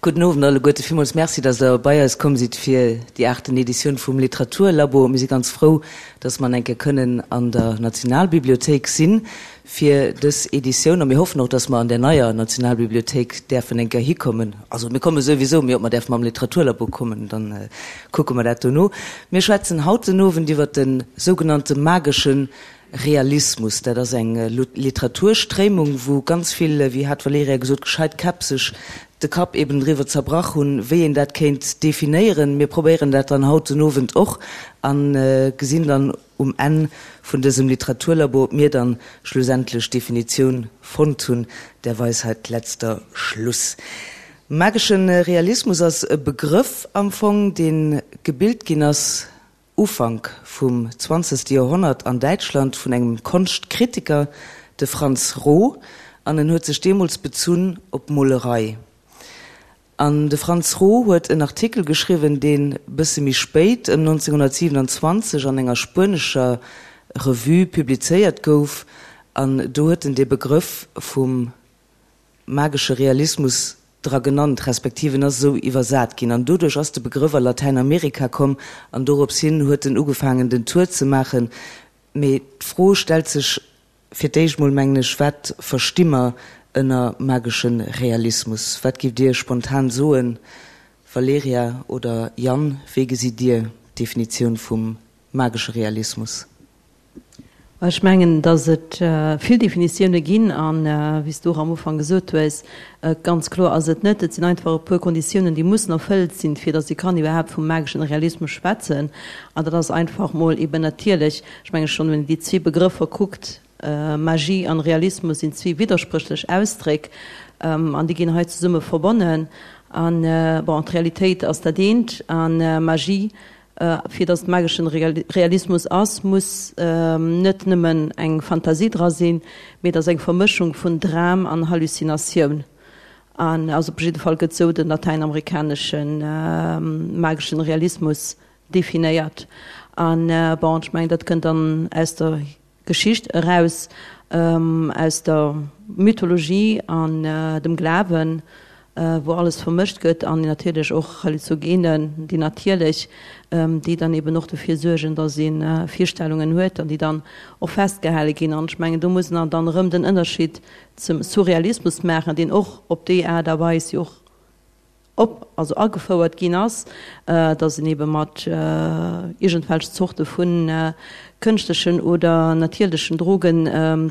Gudden Owend alleguerte. Villmools Merci, dass Der bei eis komm sidd fir déi aachten Editioun vum Literaturlabo. Mir si ganz frou, dass mer eng Kéier kënnen an der Nationalbibliothéik sinn fir dës Editioun. A mir hoffen och, dass mer an där neier Nationalbibliothéik däerfen eng Kéier hikommen. Also mir komme souwisou, mee ob mer däerfe mam Literaturlabo kommen, dann kucke mer dat dono. Mir schwätzen haut den Owend iwwert de sougenannte magesche Realismus, dat ass eng Literaturstréimung, wou ganz vill, wéi hat d'Valerija gesot, gescheit Käpp sech de Kapp eben driwwer zerbrach hunn, wéi een dat kéint definéieren. Mir probéieren dat dann haut den Owend och a gesinn dann um Enn vun dësem Literaturlabo, ob mir dann schlussendlech d'Definitioun fonnt hunn, der Weisheit letzter Schluss. Magesche Realismus ass e Begrëff am Fong, dee gebilt ginn ass Ufank vum zwanzegste Joerhonnert an Däitschland vun engem Konschtkritiker, de Franz Roh, an en huet sech deemools bezunn op d'Molerei. An de Franz Roh huet en Artikel geschriwwen, deen bësse méi spéit, ëm 1927, an enger spuenescher Revue publizéiert gouf, an do huet en dee Begrëff vum magesche Realismus dra genannt, respektiv en ass esou iwwersat ginn an doduerch ass de Begrëff a Latäinamerika komm an dorops hin huet en ugefaangen den Tour ze maachen. Mee d'Fro stellt sech fir d'éischt mol, mengen ech, wat versti mer ënner magesche Realismus? Wat giff Dir spontan soen, Valerija oder Yann, wéi gesitt Dir d'Definitioun vum magesche Realismus? Ech mengen, datt et vill Definitioune ginn an, wéi s du och am Ufank gesot hues, ganz kloer ass et net. Et sinn einfach e puer Konditiounen, déi mussen erfëllt sinn, fir datt ee kann iwwerhaapt vum mageschen Realismus schwätzen. An dat ass einfach mol eben natierlech, ech menge schonn, wann een déi zwee Begrëffer kuckt, Magie an Realismus sinn zwee widderspréchlech Ausdréck an déi ginn hei zesumme verbonnen. An, bon, d'Realitéit ass dat eent a Magie Fir datt et mageschen Realismus ass, muss net nëmmen eng Fantasie dra sinn, mee et ass eng Vermëschung vun Dram an Hallucinatioun. An also op jidde Fall gëtt sou den latäinamerikanesche mageschen Realismus definéiert. An bon, ech mengen dat kënnt dann aus der Geschicht eraus aus der Mythologie an dem Glawen, wou alles vermëscht gëtt, an natierlech och Halluzogenen, déi natierlech, déi dann eben och dofir suergen, datt ee Virstellungen huet an déi dann och festgehale ginn. An ech mengen, do muss een dann erëm den Ënnerscheed zum Surrealismus maachen, deen och op déi Aart a Weis jo och op, also agefouert ginn ass, datt een ebe mat iergendwelch Zorte vu kënschtlechen oder natierlechen Droge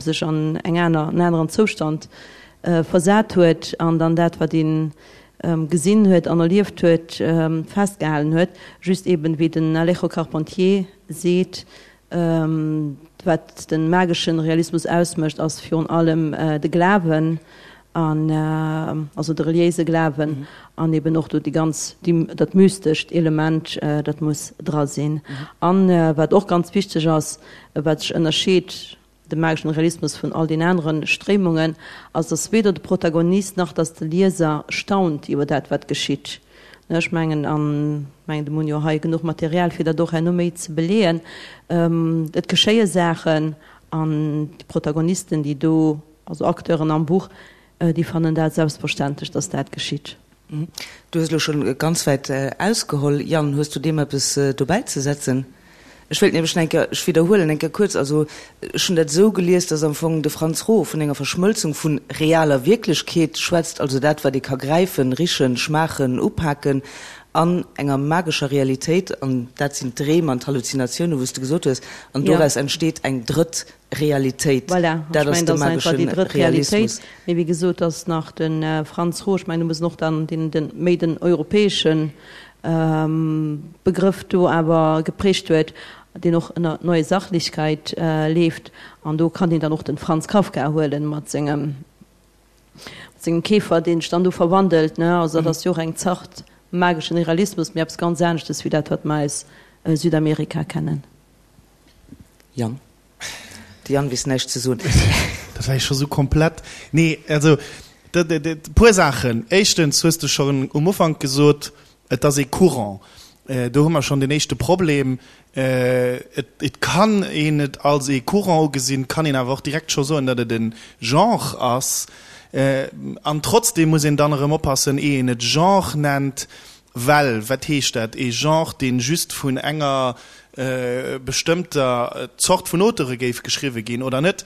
sech an eng aner, en aneren Zoustand versat huet an dann dat, wat ee gesinn huet an erlieft huet, festgehalen huet. Just eben, wéi den Alejo Carpentier seet, Wat de magesche Realismus ausmécht, ass virun allem de Glawen, an also de reliéise Glawen an eben och do déi ganz, déi, dat mystescht Element, dat muss dra sinn. An wat och ganz wichteg ass, wat sech ënnerscheet de mageschen Realismus vun all den anere Stréimungen, ass, dass weder de Protagonist nach dass de Lieser staunt iwwer dat, wat geschitt. Ech mengen, an mengen, do hunn jo hei genuch Material, fir dat och herno méi ze beleeën, et geschéie Saachen an déi Protagonisten, déi do, also Acteuren am Buch, déi fannen dat selbstverständlech, dass dat geschitt. Du hues elo schonn ganz wäit ausgeholl, Yann. Hues du deem eppes dobäi ze setzen? Ech wéilt nämlech nach eng Kéier, ech widderhuelen eng Kéier kuerz, also ech hunn dat esou gelies, dass am Fong de Franz Roh vun enger Verschmëlzung vu realer Wierklechkeet schwätzt, also dat wat ee ka gräifen, richen, schmaachen, upaken, an enger magescher Realitéit, an dat sinn d'Dreem an d'Halluzinatiounen, wou s de gesot hues, an doraus entsteet eng drëtt Realitéit. Voilà, ech mengen, dat ass einfach déi drëtt Realitéit. Mee wéi gesot, dass nach de Franz Roh, ech mengen, do muss en och dann deen, den, méi den europäesche Begrëff do awer geprägt huet, deen och ënner Neue Sachlichkeit leeft. An do kann een dann och den Franz Kafka huelen mat sengem, mat sengem Käfer, deen sech dann do verwandelt, ne. Also dat ass jo och eng Zart mageschen Realismus, mee eppes ganz aneschtes wéi dat, wat mer aus Südamerika kennen. Yann. De Yann weess näischt ze soen. Dat war jo scho sou komplett. Nee, also e puer Saachen. Éischtens hues de schonn um Ufank gesot, et ass ee Courant. Do hu mer schonn den éischte Problem. Et kann een et als ee Courant ugesinn, kann een awer och direkt scho soen, datt et e Genre ass. An trotzdeem muss een dann erëm oppassen, eh een et Genre nennt, well wat heescht dat, ee Genre, dee just vun enger bestëmmter Zort vun Auteure géif geschriwwe ginn oder net?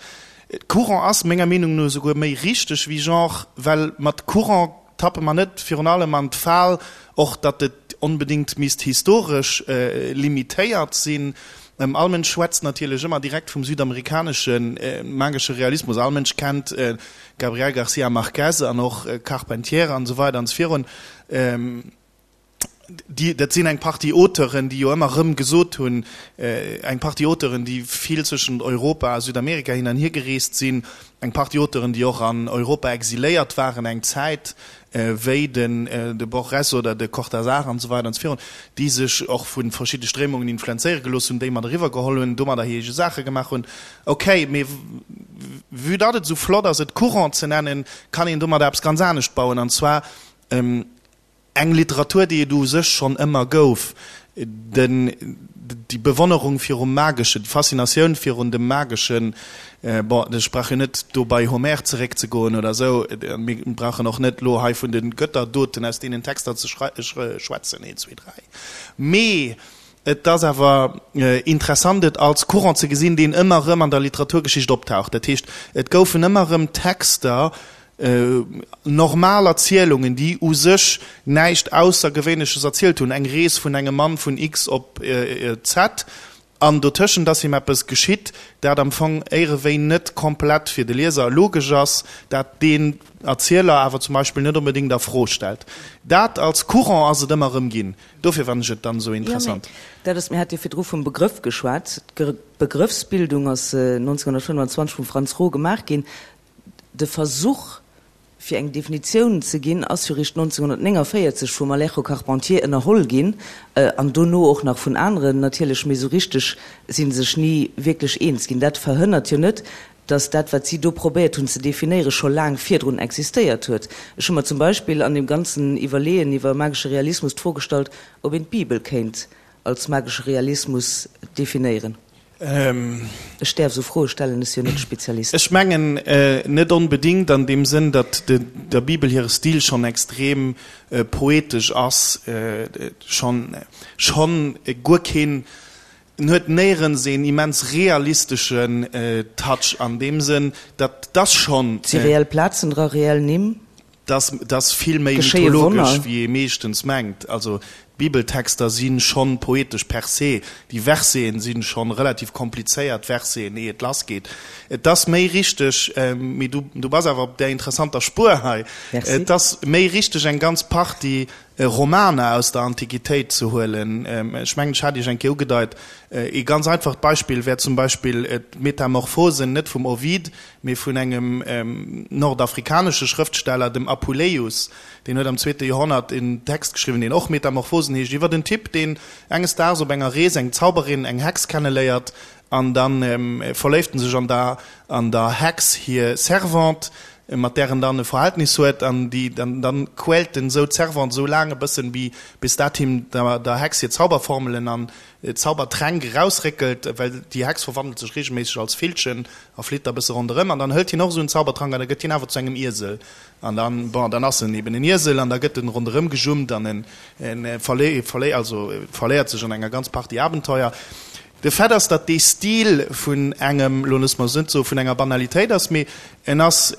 Courant ass menger Meenung no esouguer méi richteg wéi Genre, well mat Courant tappe mer net virun allem an d'Fal, och datt et onbedéngt misst historesch limitéiert sinn. All Mënsch schwätzt natierlech ëmmer direkt vum südamerikanesche magesche Realismus. All Mënsch kennt Gabriel García Márquez an och Carpentier an esou weider an esou virun. Déi, dat sinn eng Partie Auteuren, déi jo ëmmer erëm gesot hunn, eng Partie Auteuren, déi vill zwëschent Europa a Südamerika hin an hier gereest sinn, eng Partie Auteuren, déi och an Europa exiléiert waren eng Zäit, wéi den de Borges oder de Cortázar an esou weider an esou virun, déi sech och vu verschidde Stréimungen influenzéiere gelooss hunn, déi mat eriwwer geholl hunn, domadder hir eege Saache gemaach hunn. Okay, mee vue datt et esou flott ass, et Courant ze nennen, kann een domadder eppes ganz anescht bauen, an zwar Eng Literatur, déi et u sech schonn ëmmer gouf, den, déi Bewonnerung virum Mageschen, déi Faszinatioun virun dem Mageschen, bon, ech brauch jo net do bei Homer zeréckzegoen oder esou, mir brauchen och net elo hei vun de Götterdoten aus deenen Texter ze schwätzen, een, zwee, dräi, mee et ass awer interessant, et als Courant ze gesinn, deen ëmmer erëm an der Literaturgeschicht optaucht. Dat heescht, et goufen ëmmer erëm Texter, Normal Erzielungen, déi u sech näischt Aussergewéinleches erzielt hunn, eng Rees vun engem Mann vun X op Z, an dotëschent ass him eppes geschitt, dat am Fong éierewéi net komplett fir de Lieser logesch ass, dat deen Erzieler awer zum Beispill net onbedéngt a Fro stellt. Dat als Courant ass et ëmmer erëm ginn. Dofir fannen ech et dann esou interessant. Jo, mee dat ass, mir hate jo virdru vum Begrëff geschwat. D'Begrëffsbildung ass 1925 vum Franz Roh gemaach ginn. De Versuch, fir eng Definitioun ze ginn, ass jo réischt 1949 vum Alejo Carpentier ënnerholl ginn, an dono och nach vun aneren natierlech, mee esou richteg si se sech ni wierklech eens ginn. Dat verhënnert jo net, datt dat, wat si do probéiert hunn ze definéieren, scho laang virdrun existéiert huet. Ech hu mer zum Beispill an deem ganzen Iwwerleeën iwwer magesche Realismus d'Fro gestallt, ob een d'Bibel kéint als magesche Realismus definéieren. Ech däerf esou Froe stellen, ech si jo net de Spezialist. Ech mengen net onbedéngt an deem Sënn, datt der Bibel hire Stil schonn extrem poetesch ass, schonn schonn guer keen, en huet néierens een immens realisteschen Touch an deem Sënn, datt ass schonn. Et si reell Plazen dra, reell Nimm. Dat ass vill méi mythologesch, wéi ee meeschtens mengt. Also d'Bibeltexter si schonn poetesch per se. Déi Verseten si schonn relativ komplizéiert Verseten, ehe et lassgeet. Et ass méi richteg, mee du, du bass awer op där interessanter Spuer hei, et ass méi richteg eng ganz Partie Romaner aus der Antiquitéit ze huelen. Ech mengen, ech hat Iech eng Kéier ugedeit, ee ganz einfacht Beispill wär zum Beispill d'Metamorphosen, net vum Ovid, mee vun engem nordafrikanesche Schrëftsteller, dem Apuleius. Deen huet am zweete Joerhonnert en Text geschriwwen, deen och Metamorphosen heescht, iwwer en Typ, deen enges Daags op enger Rees eng Zauberin, eng Hex kenneléiert, an da verléift en sech an der an der Hex hir Servante, mat där en dann e Verhältnis huet, an déi dann dann quält en esou d'Servante esou laang e bëssen, bis dat him der der Hex hir Zauberformelen an Zaubertränk erausréckelt, well déi Hex verwandelt sech reegelméisseg als Villchen a flitt da bësse ronderëm. An dann hëlt hien och esou en Zaubertrank an da gëtt hien awer zu engem Iesel. An dann, bon, dann ass en eben en Iesel an da gëtt en ronderëm gejummt an en, en verlé, verlé, also verléiert sech an enger ganz Partie Abenteuer. De Fait ass, datt dee Stil vun engem, lo loosse mer es net soe vun enger Banalitéit ass, mee en ass,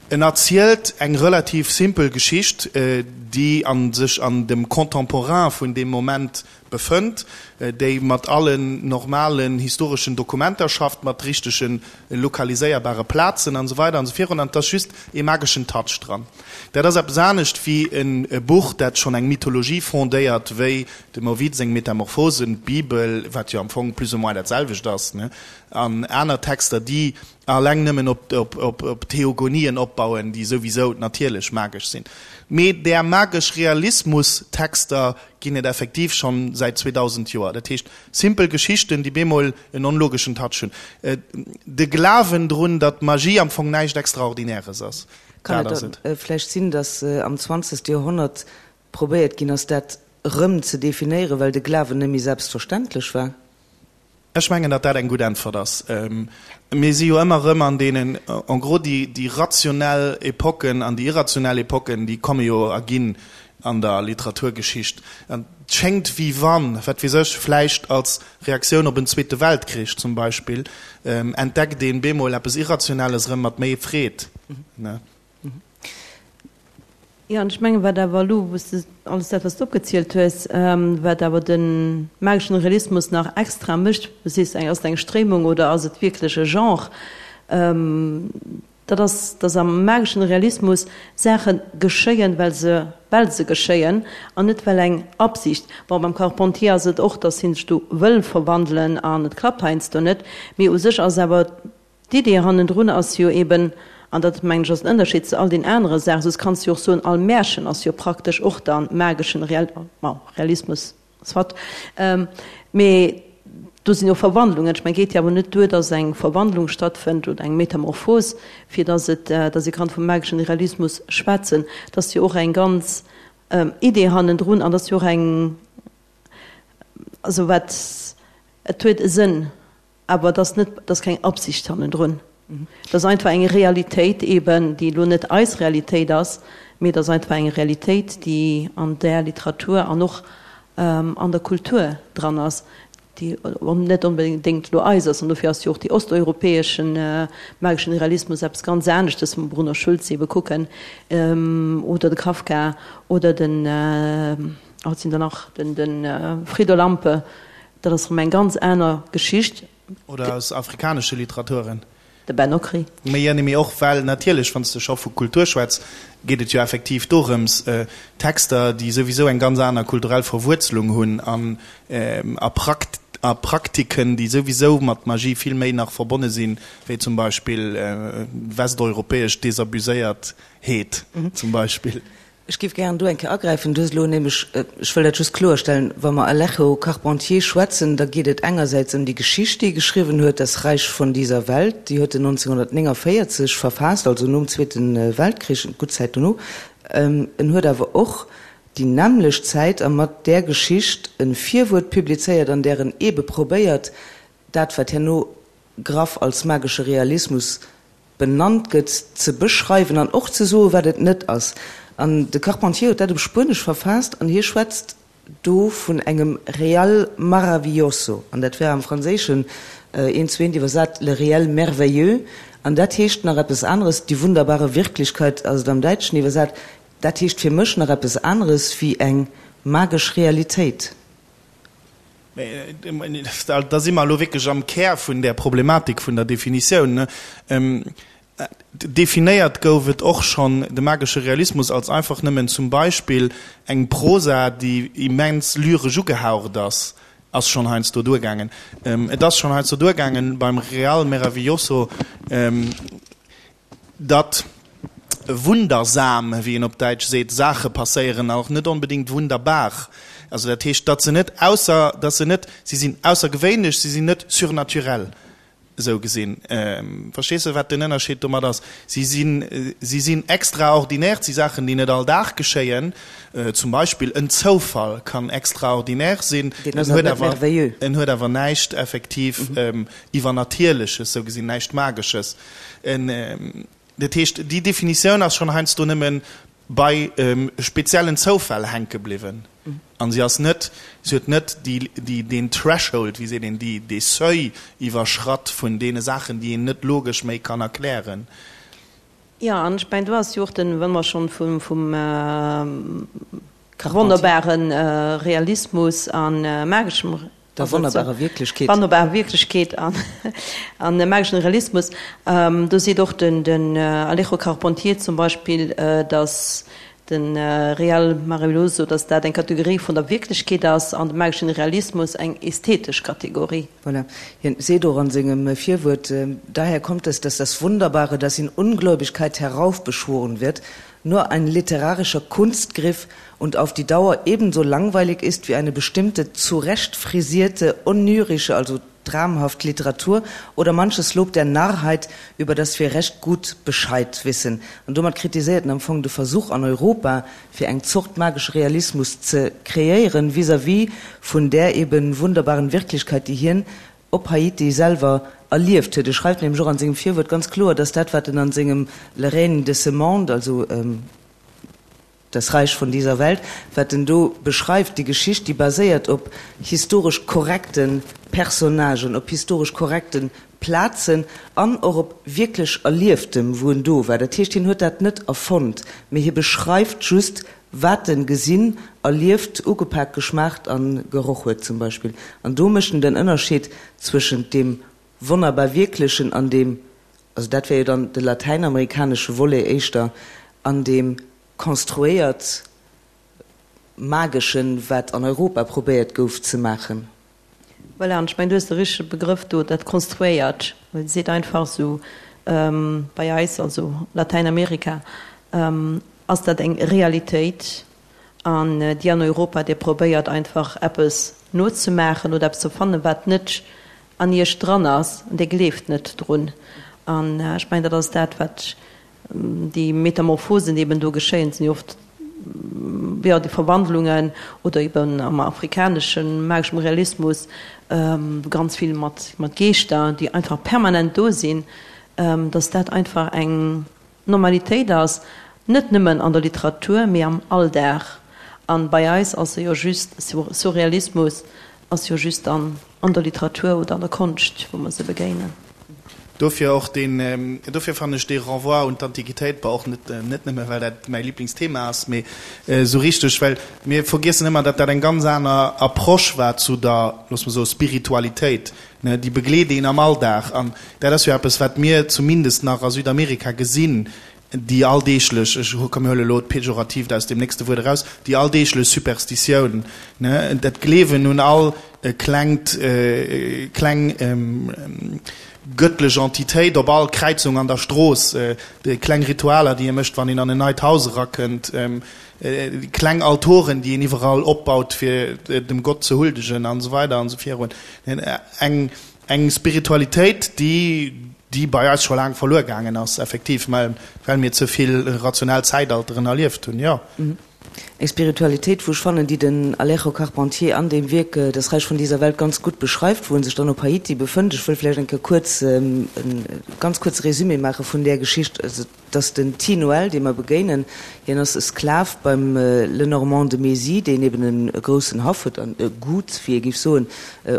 En erzielt eng relativ simpel Geschicht, déi a sech an dem Contemporain vun deem Moment befënnt, déi mat allen normalen historeschen Dokumenter schafft, mat richtege lokaliséierbare Plazen an esou weider an esou virun, an et ass just ee mageschen Touch dran. Dat ass eppes anescht wéi e Buch, dat schonn eng Mythologie fondéiert, wéi dem Ovid seng Metamorphosen, d'Bibel, wat jo am Fong plus ou moins dat selwecht ass, an aner Texter, déi Alleng nëmmen op Theogonien opbauen, déi souwisou natierlech magesch sinn. Mee där magesch Realismus-Texter ginn et effektiv schonn säit 2000 Joer. Dat heescht, simpel Geschichten, déi bemol en onlogeschen Touch hunn. De Glawen drun, datt Magie am Fong näischt Extraordinäres ass, Kann dat et ass et. da vläicht sinn, datt am zwanzegste Joerhonnert probéiert ginn ass, dat erëm ze definéieren, well de Glawen net méi selbstverständlech war? Ech mengen, datt dat eng gutt Äntwert ass. Mir si jo ëmmer erëm an deenen, en gros, déi, déi rationell Epoken an déi irrationell Epoken, déi komme jo a ginn an der Literaturgeschicht. An et schéngt, wéi wann, wat weess ech, vläicht als Reaktioun op en Zweete Weltkrich zum Beispill, entdeckt een bemol eppes Irrationelles erëm mat méi Freed. Jo, an ech mengen, wat awer elo, wou s de alles dat, wat s de opgezielt hues, wat awer de mageschen Realismus nach extra mécht, du sees, ass et eng Stréimung oder ass et wierklech e Genre, dat ass, dass am mageschen Realismus Saache geschéien, well se, well se geschéien an net well eng Absicht, bon, beim Carpentier ass et och, dass hie sech do wëll verwandelen an et klappt heiansdo net, mee u sech ass awer D'Idee hannendrun ass jo eben, an dat mengen ech ass den Ënnerscheed zu all den anere Saachen, soss kanns du jo och soen, all Märchen ass jo praktesch och dann mageschen Real, bon, Realismus, soit, mee do sinn jo Verwandlungen. Ech mengen, et geet jo awer net duer, dass eng Verwandlung stattfënnt oder eng Metamorphos, fir dass et, dass ee kann vum mageschen Realismus schwätzen. Et ass jo och eng ganz Idee hannendrun an et ass jo och eng, also wat, et huet e Sënn. Awer et ass net, et ass keng Absicht hannendrun. Et ass einfach eng Realitéit eben, déi elo net eis Realitéit ass, mee et ass einfach eng Realitéit, déi an där Literatur an och an der Kultur dran ass, déi net onbedéngt elo eis ass. An dofir ass jo och dee osteuropäesche mageschen Realismus eppes ganz aneschtes, wa mer Bruno Schulz ebe kucken oder de Kafka oder den, wat sinn der nach, de Frieder Lampe. Dat ass erëm eng ganz aner Geschicht. Oder aus afrikanesche Literaturen. De Ben Okri. Mee jo, mee och well natierlech, wann s de scho vu Kultur schwätz, geet et jo effektiv dorëms, Texter, déi souwisou eng ganz aner kulturell Verwuerzelung hunn an a a Praktiken, déi souwisou mat Magie vill méi nach verbonne sinn, wéi zum Beispill westeuropäesch Desabuséiertheet zum Beispill. Ech géif gären do eng Kéier agräifen. Du hues elo nämlech, ech wëll dat just kloerstellen, wa mer Alejo Carpentier schwätzen, da geet et engersäits ëm déi Geschicht, déi e geschriwwen huet, Das Reich von dieser Welt, déi huet en 1949 verfaasst, also nom Zweete Weltkrich, gutt Zäit dono. En huet awer och déi nämmlecht Zäit a mat där Geschicht e Virwuert publizéiert, an där en eebe probéiert, dat, wat herno graff als magesche Realismus benannt gëtt, ze beschreiwen an och ze soen, wat et net ass. An de Carpentier huet dat op Spuenesch verfaasst an hie schwätzt do vun engem real maravilloso, an dat wär am Franséischen eent zu eent iwwersat le réel merveilleux, an dat heescht nach eppes aneres, die wunderbare Wirklichkeit ass et am Däitschen iwwersat, dat heescht fir mech nach eppes aneres wéi eng magesch Realitéit. Da si mer elo wierklech am Kär vun där Problematik vun der Definitioun. Definéiert gouf et och schonn de magesche Realismus als einfach nëmmen zum Beispill eng Prosa, déi immens lyresch ugehaucht ass, ass schonn heiansdo duergaangen. Et ass schonn heiansdo duergaangen beim Real Meravilloso, Datt wundersam, wéi een op Däitsch seet, Saache passéieren, an och net onbedéngt wunderbar. Also dat heescht, datt se net ausser, datt se net, si sinn aussergewéinlech, si sinn net surnaturell, esou gesinn. Verstees de, wat den Ënnerscheed domat ass? Si sinn, si sinn extraordinaire, et si Saachen, déi net all Dag geschéien. Zum Beispill en Zoufall kann extraordinaire sinn, en huet awer, en huet awer näischt effektiv Iwwernatierleches, esou gesinn, näischt Magesches. Dat heescht, déi Definitioun ass schonn heiansdo nëmme bei speziellen Zoufäll hänke bliwwen a si ass net, si huet net déi, deen Threshold, wéi seet een, déi, dee Seuil iwwerschratt vun deene Saachen, déi een net logesch méi kann erklären. Jo, an ech mengen, do ass jo och den, wa mer schonn vum, vum wonnerbare Realismus a mageschem Der wonnerbarer Wierklechkeet. Wonnerbarer Wierklechkeet an an mageschen Realismus. Do seet och den den Alejo Carpentier zum Beispill, datt de Real Maravilloso, datt dat eng Kategorie vun der Wierklechkeet ass an de mageschen Realismus eng ästhetesch Kategorie. Voilà. Hien seet och an sengem Virwuert, Daher kommt es, dass das Wunderbare, das in Ungläubigkeit heraufbeschworen wird, nur ein literarischer Kunstgriff und auf die Dauer ebenso langweilig ist wie eine bestimmte zurecht frisierte onyrische, also dramhaft Literatur oder manches Lob der Narrheit, über das wir recht gut Bescheid wissen. An domat kritiséiert en am Fong de Versuch an Europa, fir eng Zort magesche Realismus ze kreéieren vis-à-vis vun där eben wunderbaren Wirklichkeit, déi hien. op Haiti selwer erlieft huet. E schreift nämlech och an sengem Virwuert ganz kloer, dass dat, wat en an sengem Le règne de ce monde, also Das Reich von dieser Welt, wat en do beschreift, déi Geschicht, déi baséiert op historesch korrekte Personnagen, op historesch korrekte Plazen an och op wierklech Erlieftem, wou en do war. Dat heescht, hien huet dat net erfonnt, mee hie beschreift just, wat en gesinn, erlieft, ugepak, geschmaacht a geroch huet zum Beispill. An do mécht en den Ënnerscheed zwëschent deem wonnerbar Wierklechen an deem, also dat wär jo dann de latäinamerikanesche Volet éischter, an deem konstruéiert Mageschen, wat an Europa probéiert gouf ze maachen. Voilà, an ech mengen, du hues de richtege Begrëff do, dat konstruéiert, well et seet einfach esou, bei eis, also Latäinamerika, ass dat eng Realitéit an déi an Europa, Dir probéiert einfach eppes nozemaachen oder eppes ze fannen, wat net an Iech dran ass an Dir gleeft net drun. An ech mengen, dat ass dat, wat Déi Metamorphosen, déi eben do geschéien, sinn jo oft, jo, déi Verwandlungen oder eben am afrikanesche mageschem Realismus ganz vill mat mat Geeschter, déi einfach permanent do sinn, datt dat einfach eng Normalitéit ass, net nëmmen an der Literatur, mee am Alldag. An bei eis ass e jo just, Surrealismus ass jo just an an der Literatur oder an der Konscht, wou mer se begéinen. Dofir och deen, dofir fannen ech dee Renvoi un d'Antiquitéit, bon och net, net nëmme well dat mäi Liblingsthema ass, mee esou richteg, well mir vergiessen ëmmer, datt dat eng ganz aner Approche war zu der, loosse mer soe Spiritualitéit, ne, déi begleet een am Alldag. An dat ass jo eppes, wat mir zumindest nach a Südamerika gesinn, déi alldeeglech, ech komm mir huele elo d'Pejoratiivt aus deem nächste Wuert eraus, déi alldeeglech Superstitioun, ne, dat Gleewen un all klengt, kleng gëttlech Entitéit op all Kräizung an der Strooss, déi kleng Ritualer, déi ee mécht, wann een an en neit Haus erakënnt, déi kleng Altoren, déi een iwwerall opbaut, fir dem Gott ze huldegen an esou weider an esou virun. Eng Eng Spiritualitéit, déi déi bei eis scho laang verluer gaangen ass, effektiv, mä well mir ze vill rationell Zäitalteren erlieft hunn, jo. Eng Spiritualitéit, wou ech fannen, déi den Alejo Carpentier an deem Wierk Das Reich von dieser Welt ganz gutt beschreift, wou en sech dann op Haiti befënnt. Ech wëll vläicht eng Kéier kuerz e ganz kuerze Résumé maache vun där Geschicht. 't ass den Ti Noël, dee mer begéinen. Hien ass e Sklav beim Lenormand de Mézy, deen eben e groussen Haff huet an e Gut, wéi ee géif soen,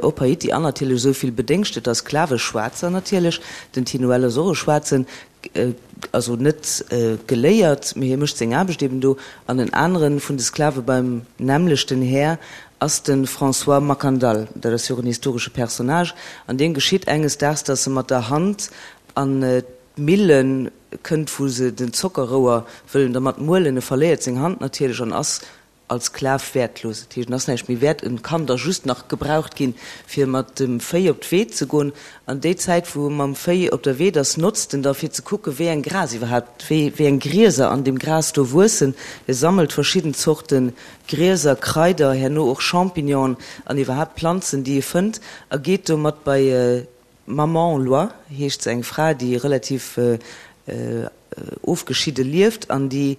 op Haiti an natierlech esou vill bedéngschteter Sklave, Schwaarzer natierlech. Den Ti Noël ass och e Schwaarzen, also net geléiert, mee hie mécht seng Aarbecht eben do. An en anere vun de Sklave beim nämmlechten Här ass de François Mackandal. Dat ass jo och en historesche Personnage. An deem geschitt enges Daags, datt e mat der Hand an D'Millen kënnt wou se den Zockerrouer wëllen dermat muelen. E verléiert seng Hand natierlech an ass als Sklav wäertlos. Dat heescht, en ass näischt méi wäert, en kann da just nach gebraucht ginn, fir mat dem Véi op d'Weed ze goen. An déi Zäit, wou e mam Véi op der Weed ass, notzt en da fir ze kucken, wéi eng Gras iwwerhaapt, wéi wéi eng Grieser an deem Gras do wuessen. E sammelt verschidden Zorte Grieser, Kraider, herno och Champignonen an iwwerhaapt Planzen, déi e fënnt, a geet domat bei D'Maman Loi heescht se, eng Fra, déi relativ ofgeschidde lieft an déi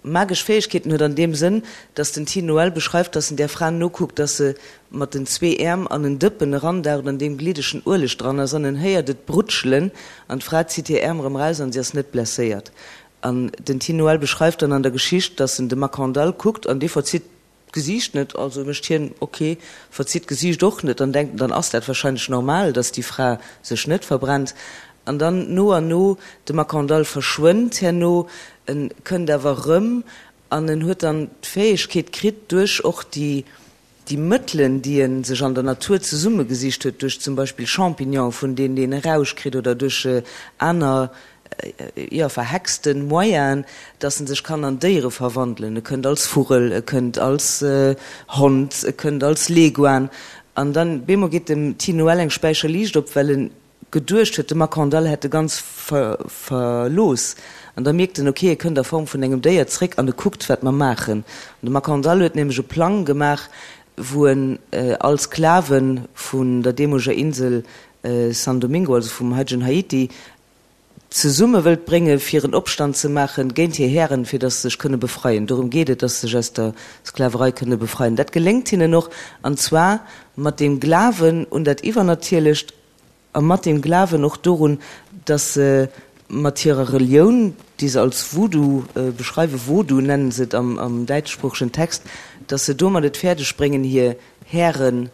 magesch Fäegkeeten huet an deem Sënn, datt den Ti Noël beschreift, datt en där Fra nokuckt, datt se mat den zwee Äerm an en Dëppen erandaucht, an deem gliddegen Ueleg dran ass, an en héiert et brutschelen an d'Fra zitt hir Äerm erëm eraus an si ass net blesséiert. An den Ti Noël beschreift dann an der Geschicht, datt en de Makandal kuckt an dee verzitt D'Gesiicht net, also mécht hien ok, verzitt d'Gesiicht och net, dann denkt en, dann ass dat wahrscheinlech normal, dass déi Fra sech net verbrennt. An dann no an no, de Makandal verschwënnt herno, en kënnt awer erëm an en huet dann d'Fäegkeet kritt, duerch och déi déi Mëttelen, déi en sech an der Natur zesummegesicht huet, duerch zum Beispill Champignonen, vun deenen een e Rausch kritt, oder duerch aner jo, verhexten Moyenen, dass en sech kann an Déiere verwandelen. E kënnt als Vugel, e kënnt als Hond, e kënnt als Leguan. An dann bemol geet dem Ti Noël eng Späicher Liicht op, well en geduecht huet, de Makandal hätt e ganz verlooss. An da mierkt en, ok, e kënnt a Form vun engem Déier zréck an e kuckt, wat mer maachen. An de Makandal huet nämlech e Plang gemaach, wou en all Sklave vun der deemoleger Insel San Domingo, also vum haitegen Haiti, zesumme wëllt brénge fir en Opstand ze maache géint hir Hären, fir datt se sech kënne befreien. Dorëm geet et, datt se sech aus der Sklaverei kënne befreien. Dat geléngt hinnen och, an zwar mat deem Glawen un dat Iwwernatierlecht a mat deem Glawen och dorun, datt se mat hirer Relioun, déi se als Voodoo beschreiwen, Vodou nennen se et am däitschsproochegen Text, datt se domat et fäerdeg bréngen, hir Hären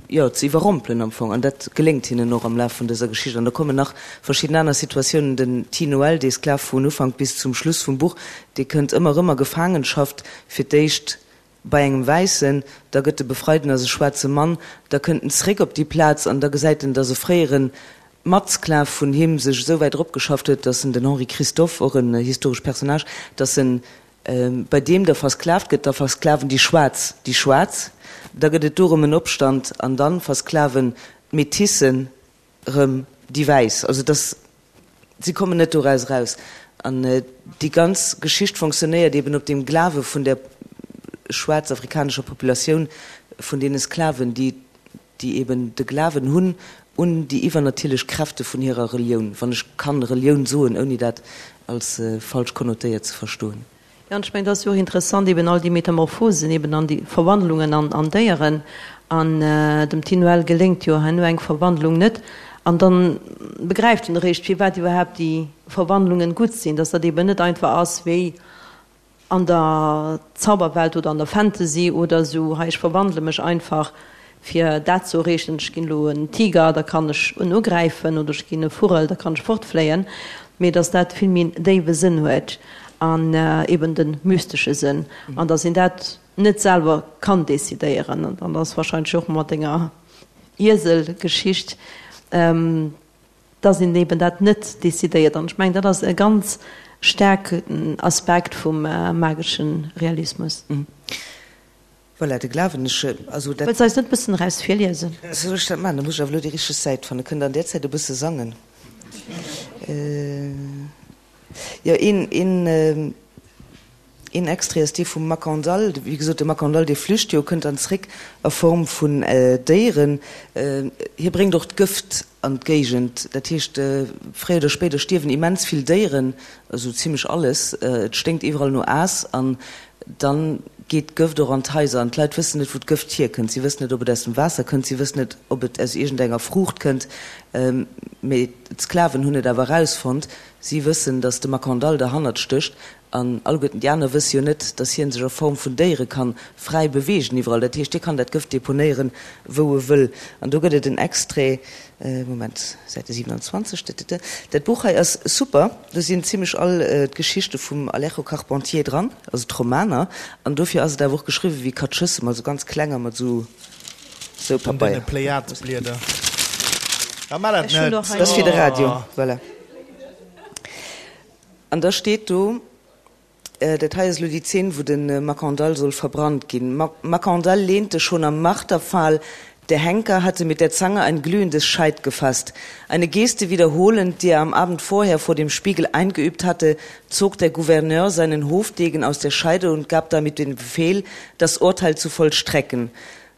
jo, ze iwwerrompelen am Fong. An dat geléngt hinnen och am Laf vun dëser Geschicht. An da kommen nach verschidden aner Situatiounen. Den Ti Noël, dee Sklav vun Ufank bis zum Schluss vum Buch, dee kënnt ëmmer erëm a Gefaangenschaft, fir d'éischt bei engem Wäissen, da gëtt e befreit en ass e schwaarze Mann, da kënnt en zeréck op déi Plaz an da gesäit en, datt e fréiere Matsklav vun him sech esou wäit eropgeschafft huet, datt en, den Henri Christophe, och en historesche Personnage, datt en bei deem da versklavt gëtt, da versklaven déi Schwaarz déi Schwaarz, da gëtt et do erëm en Opstand an da versklaven d'Métissen erëm déi Wäiss. Also dass, si kommen net doraus eraus. An déi ganz Geschicht fonctionnéiert eben op deem Glawe vun der schwaarzafrikanescher Populatioun, vun deene Sklaven, déi déi eben de Glawen hunn un déi iwwernatierlech Kräfte vun hirer Relioun, wann ech kann Relioun soen, ouni dat als falsch konnotéiert ze verstoen. Jo, an ech mengen, et ass jo och interessant eben all déi Metamorphosen eben an déi Verwandlungen an an Déieren. An dem Ti Noël geléngt jo herno eng Verwandlung net. An dann begräift en eréischt, firwat iwwerhaapt déi Verwandlungen gutt sinn, dass dat eben net einfach ass wéi an der Zauberwelt oder an der Fantasy oder esou, hei ech verwandele mech einfach fir dat ze erreechen, ech ginn elo en Tiger, da kann ech en ugräifen oder ech ginn e Vugel, da kann ech fortfléien, mee dass dat vill méi en déiwe Sënn huet an eben de mystesche Sënn an dass een dat net selwer kann decidéieren. An dann ass wahrscheinlech och mat denger Ieselgeschicht, dass een eben dat net decidéiert. An ech mengen, dat ass e ganz staarken Aspekt vum magesche Realismus. Voilà, de Glawen, ech, also dat. Wëlls de eis net e bëssen eraus virliesen? Soll ech dat maachen? Da muss ech awer elo déi richteg Säit fannen. Kënnt Der an där Zäit e bësse sangen? Jo, een, een. Een Extrait ass dee vum Makandal. Wéi gesot, de Makandal, dee flücht jo, kënnt dann zréck a Form vun Déieren. Hie bréngt och d'Gëft an d'Géigend. Dat heescht, fréier oder spéider stierwen immens vill Déieren, esou zimlech alles. Et sténkt iwwerall no Aass an dann geet d'Gëft och an d'Haiser. An d'Leit wëssen net, wou d'Gëft hierkënnt. Si wëssen net, ob et aus dem Waasser kënnt, si wëssen net, ob et aus iergendenger Fruucht kënnt. Mee d'Sklaven hunn et awer erausfonnt. Si wëssen, datt de Makandal derhannert stécht. An alleguerten déi aner wësse jo net, dass hien sech a Form vun Déiere kann fräi beweegen iwwerall. Dat heescht, hie kann dat Gëft deponéieren, wou e wëll. An do gëtt et en Extrait, Moment, Säite 27, tëtëtë. Dat Buch hei ass super, do sinn zimlech all d'Geschichte vum Alejo Carpentier dran, also d'Romaner. An dofir ass et awer och geschriwwen wéi Katschëssem, also ganz kleng a mat esou, esou An deene Pabeier. Pléiadesblieder. Ah, maach dat Ech hunn net! och hei Dat ass fir de Radio, voilà. An da steet do, dat hei ass elo déi Zeen, wou de Makandal soll verbrannt ginn, Makandal lehnte schon am Marterpfahl, der Henker hatte mit der Zange ein glühendes Scheit gefasst. Eine Geste wiederholend, die er am Abend vorher vor dem Spiegel eingeübt hatte, zog der Gouverneur seinen Hofdegen aus der Scheide und gab damit den Befehl, das Urteil zu vollstrecken.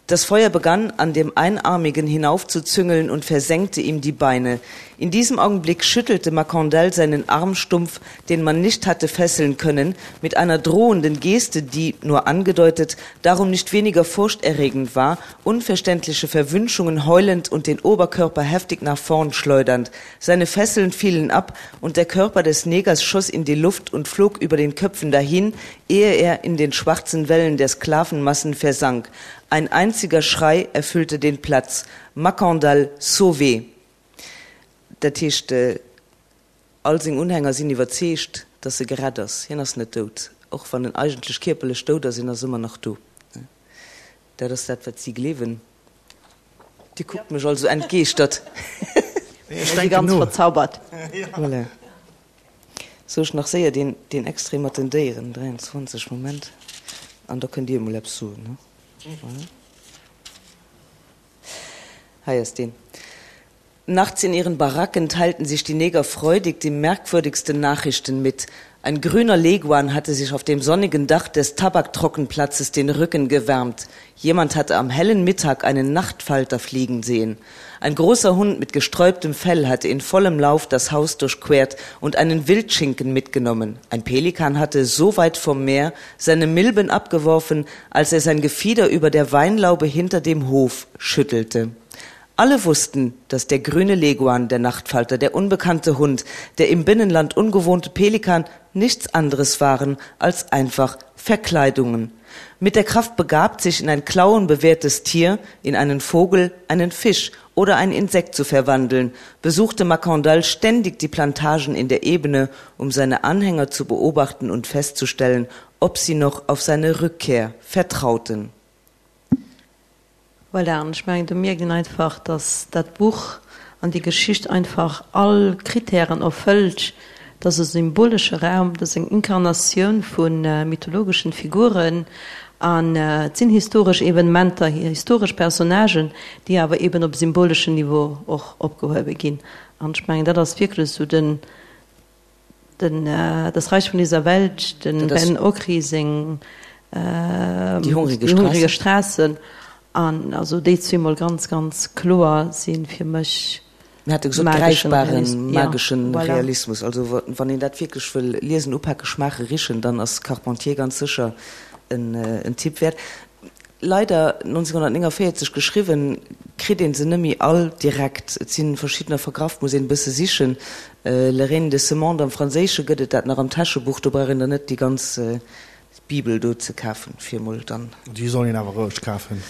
Das Feuer begann, an dem Einarmigen hinaufzuzüngeln und versenkte ihm die Beine. In diesem Augenblick schüttelte Macandal seinen Arm stumpf, den man nicht hatte fesseln können, mit einer drohenden Geste, die, nur angedeutet, darum nicht weniger furchterregend war, unverständliche Verwünschungen heulend und den Oberkörper heftig nach vorn schleudernd. Seine Fesseln fielen ab und der Körper des Negers schoss in die Luft und flog über den Köpfen dahin, ehe er in den schwarzen Wellen der Sklavenmassen versank. Ein einziger Schrei erfüllte den Platz, Makandal sauvé! Dat heescht, all seng Unhänger sinn iwwerzeegt, datt e gerett ass. Hien ass net dout, och wann en eigentlech kierperlech dout ass, en ass ëmmer nach do. Dat ass dat, wat si gleewen. Dir kuckt mech all sou entgeeschtert. Ech denken ganz no. verzaubert. Voilà. Sou ech nach séier deen deen Extrait mat den Déieren, 23, Moment, an da kënnt Dir emol eppes soen, ne? Voilà. Hei ass deen. Nachts in ihren Baracken teilten sich die Neger freudig die merkwürdigsten Nachrichten mit. Ein grüner Leguan hatte sich auf dem sonnigen Dach des Tabaktrockenplatzes den Rücken gewärmt. Jemand hatte am hellen Mittag einen Nachtfalter fliegen sehen. Ein großer Hund mit gesträubtem Fell hatte in vollem Lauf das Haus durchquert und einen Wildschinken mitgenommen. Ein Pelikan hatte so weit vom Meer seine Milben abgeworfen, als er sein Gefieder über der Weinlaube hinter dem Hof schüttelte. Alle wussten, dass der grüne Leguan, der Nachtfalter, der unbekannte Hund, der im Binnenland ungewohnte Pelikan nichts anderes waren als einfach Verkleidungen. Mit der Kraft begabt, sich in ein klauenbewehrtes Tier, in einen Vogel, einen Fisch oder ein Insekt zu verwandeln, besuchte Macandal ständig die Plantagen in der Ebene, um seine Anhänger zu beobachten und festzustellen, ob sie noch auf seine Rückkehr vertrauten. Voilà, an ech mengen, do mierkt een einfach, dass dat Buch an déi Geschicht einfach all Kritären erfëllt. Et ass e symbolesche Raum, et ass eng Inkarnatioun vu mythologeschen Figuren an et sinn historesch Evenementer, historesch Personnagen, déi awer eben op symboleschen Niveau och opgehuewe ginn. An ech mengen, dat ass wierklech esou den, Den Das Reich von dieser Welt, den Ben Okri seng Die hungrige Straße, an also déi zweemol ganz, ganz kloer si fir mech Mir hate gesot, gräifbaren mageschen Realismus. Also wann een dat wierklech wëll liesen, upaken, schmaachen, richen, dann ass Carpentier ganz sécher en Tipp wäert. Leider, 1949 geschriwwen, kritt een se nëmmi all direkt. Et si verschiddener vergraff, muss een e bësse sichen. Le Règne de ce monde am Franséische gëtt et dat nach am Täschebuch, do brauch een dann net déi ganz Bibel do ze kafen, fir emol dann. Déi soll een awer roueg kafen.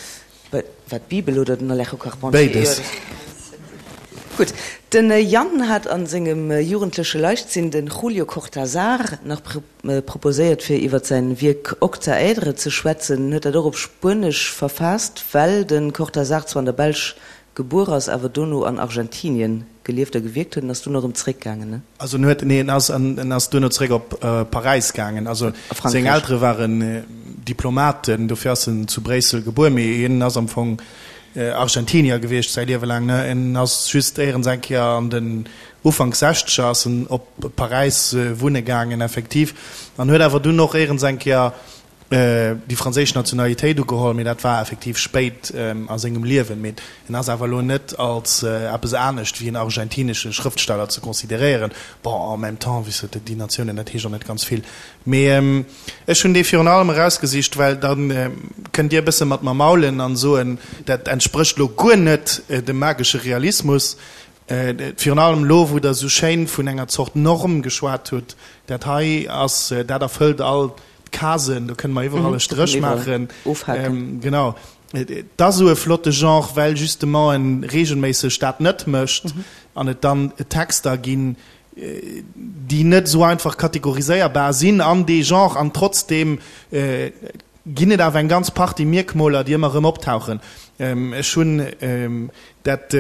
Wat, d'Bibel oder den Alejo Carpentier? Béides. Gutt, den Yann hat a sengem jugendleche Leichtsinn de Julio Cortázar nach proposéiert fir iwwer säin Wierk Octaèdre ze schwätzen. En huet dat och op Spuenesch verfaasst, well de Cortázar zwar an der Belsch gebuer ass, awer dono an Argentinien gelieft a gewierkt huet. En ass dunn erëm zeréckgaangen, ne? Also en huet, nee, en ass, en ass duerno zeréck op Paräis gaangen. Also seng Eltere waren Diplomaten, dofir ass en zu Bréissel gebuer, mee hien ass am Fong Argentinier gewiescht säi Liewe laang, ne? En ass just éierens eng Kéier an den Ufank Sechzeger ass en op Paräis wunne gaangen, effektiv, an huet awer dunn och éierens eng Kéier déi franséisch Nationalitéit ugeholl, mee dat war effektiv spéit a sengem Liewen. Mee en ass awer elo net als eppes anescht wéi en argentinesche Schrëftsteller ze consideréieren. Bon, en même temps, wéi s de, déi Natiounen, dat heescht och net ganz vill. Mee ech hunn dee virun allem erausgesicht, well da kënnt Dir e bësse mat mer maulen an soen, dat entsprécht elo guer net dem magesche Realismus. Virun allem elo, wou Der esou schéin vun enger Zort Norm geschwat hutt, dat hei ass, dat erfëllt all d'Casen, do kënne mer iwwerall e Stréch maachen. Genau. Et ass esou e flotte Genre, well justement e reegelméisseg dat net mécht an et dann Texter ginn, déi net esou einfach kategoriséierbar sinn an dee Genre an trotzdeem ginn et awer eng ganz Partie Mierkmoler, déi ëmmer erëm optauchen. Ech hunn dat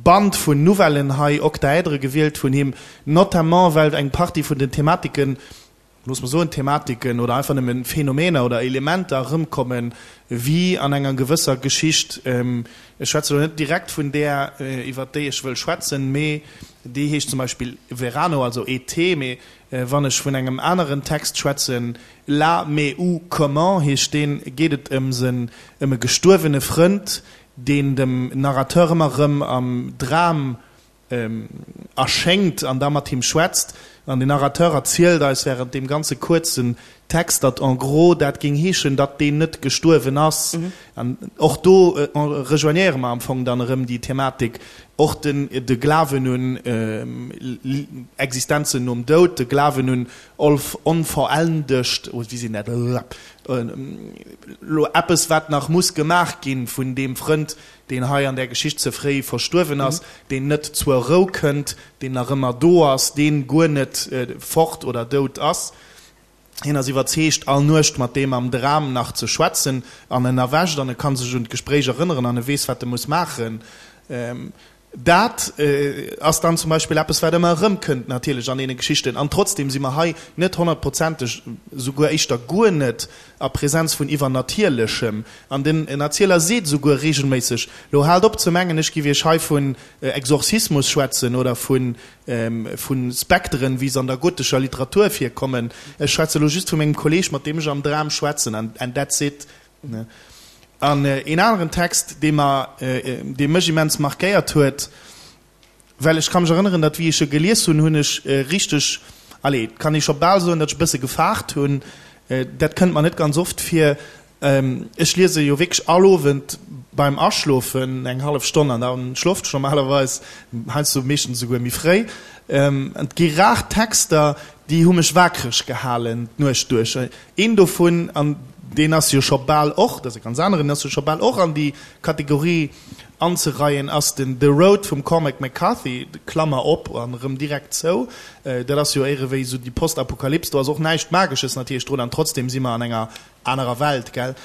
Band vun Nouvellen hei, Octaèdre, gewielt vun him, notamment well eng Partie vun den Thematiken, looss mer soen Thematiken oder einfach nëmmen Phänomener oder Elementer erëmkommen, wéi an enger gewësser Geschicht. Ech schwätze elo net direkt vun där, iwwert déi ech wëll schwätzen, mee déi heescht zum Beispill Verano, also Été, mee wann ech vun engem aneren Text schwätzen, Là, mais où, comment heescht deen, geet et ëm sen, ëm e gestuerwene Frënd, deen dem Narrateur ëmmer erëm am Dram erschéngt an da mat him schwätzt. An den Narrateur erzielt eis während deem ganze kuerzen Text, datt en gros dat géing heeschen, datt deen net gestuerwen ass. An och do rejoignéiere mer am Fong dann erëm déi Thematik, och den de Glawen un Existenzen nom Doud, de Glawen un onvollendegt, oh wéi sinn dat, elo eppes wat nach muss gemaach ginn vun deem Frënd, deen hei an där Geschicht ze fréi verstuerwen ass, deen net zur Rou kënnt, deen nach ëmmer do ass, deen guer net fort oder dout ass. Hien ass iwwerzeegt, all Nuecht mat deem am Dram nach ze schwätzen, an en erwächt an e ka sech un d'Gespréich erënneren an e weess, wat e muss maachen. Dat ass dann zum Beispill eppes, wat ëmmer erëmkënnt natierlech an deene Geschichten. An trotzdem si mer hei net honnertprozenteg, souguer éischter guer net, a Präsenz vun Iwwernatierlechem. An den Erzieler seet esouguer regelméisseg, Lo haalt op ze mengen, ech giff iech hei vun Exorzismus schwätzen oder vu Spekteren, wéi se an der gotescher Literatur virkommen. Ech schwätze lo just vu mengem Kolleg, mat deem ech am Dram schwätzen, and that's it. An een aneren Text, dee mer, dee mech immens markéiert huet, well ech ka mech erënneren, datt wéi ech e gelies hunn, hunn ech richteg, allez, et kann ee scho bal soen, datt ech e bësse gefaart hunn. Dat kënnt mer net ganz oft vir. Ech liese jo wierklech all Owend beim Aschlofen eng hallef Stonn an da schloft ech normalerweis, heiansdo meeschtens esouguer méi fréi. An et gi rar Texter, déi hu mech wakereg gehalen d'Nuecht duerch. Een dovun, an deen ass jo scho bal och, dat ass e ganz aneren, deen ass jo scho bal och an déi Kategorie anzereien, ass den The Road vum Cormac McCarthy, Klammer op an erëm direkt zou. Dat ass jo éirewéi esou déi Postapokalyps, do ass och näischt Magesches natierlech drun an trotzdem si mer an enger anerer Welt, gell.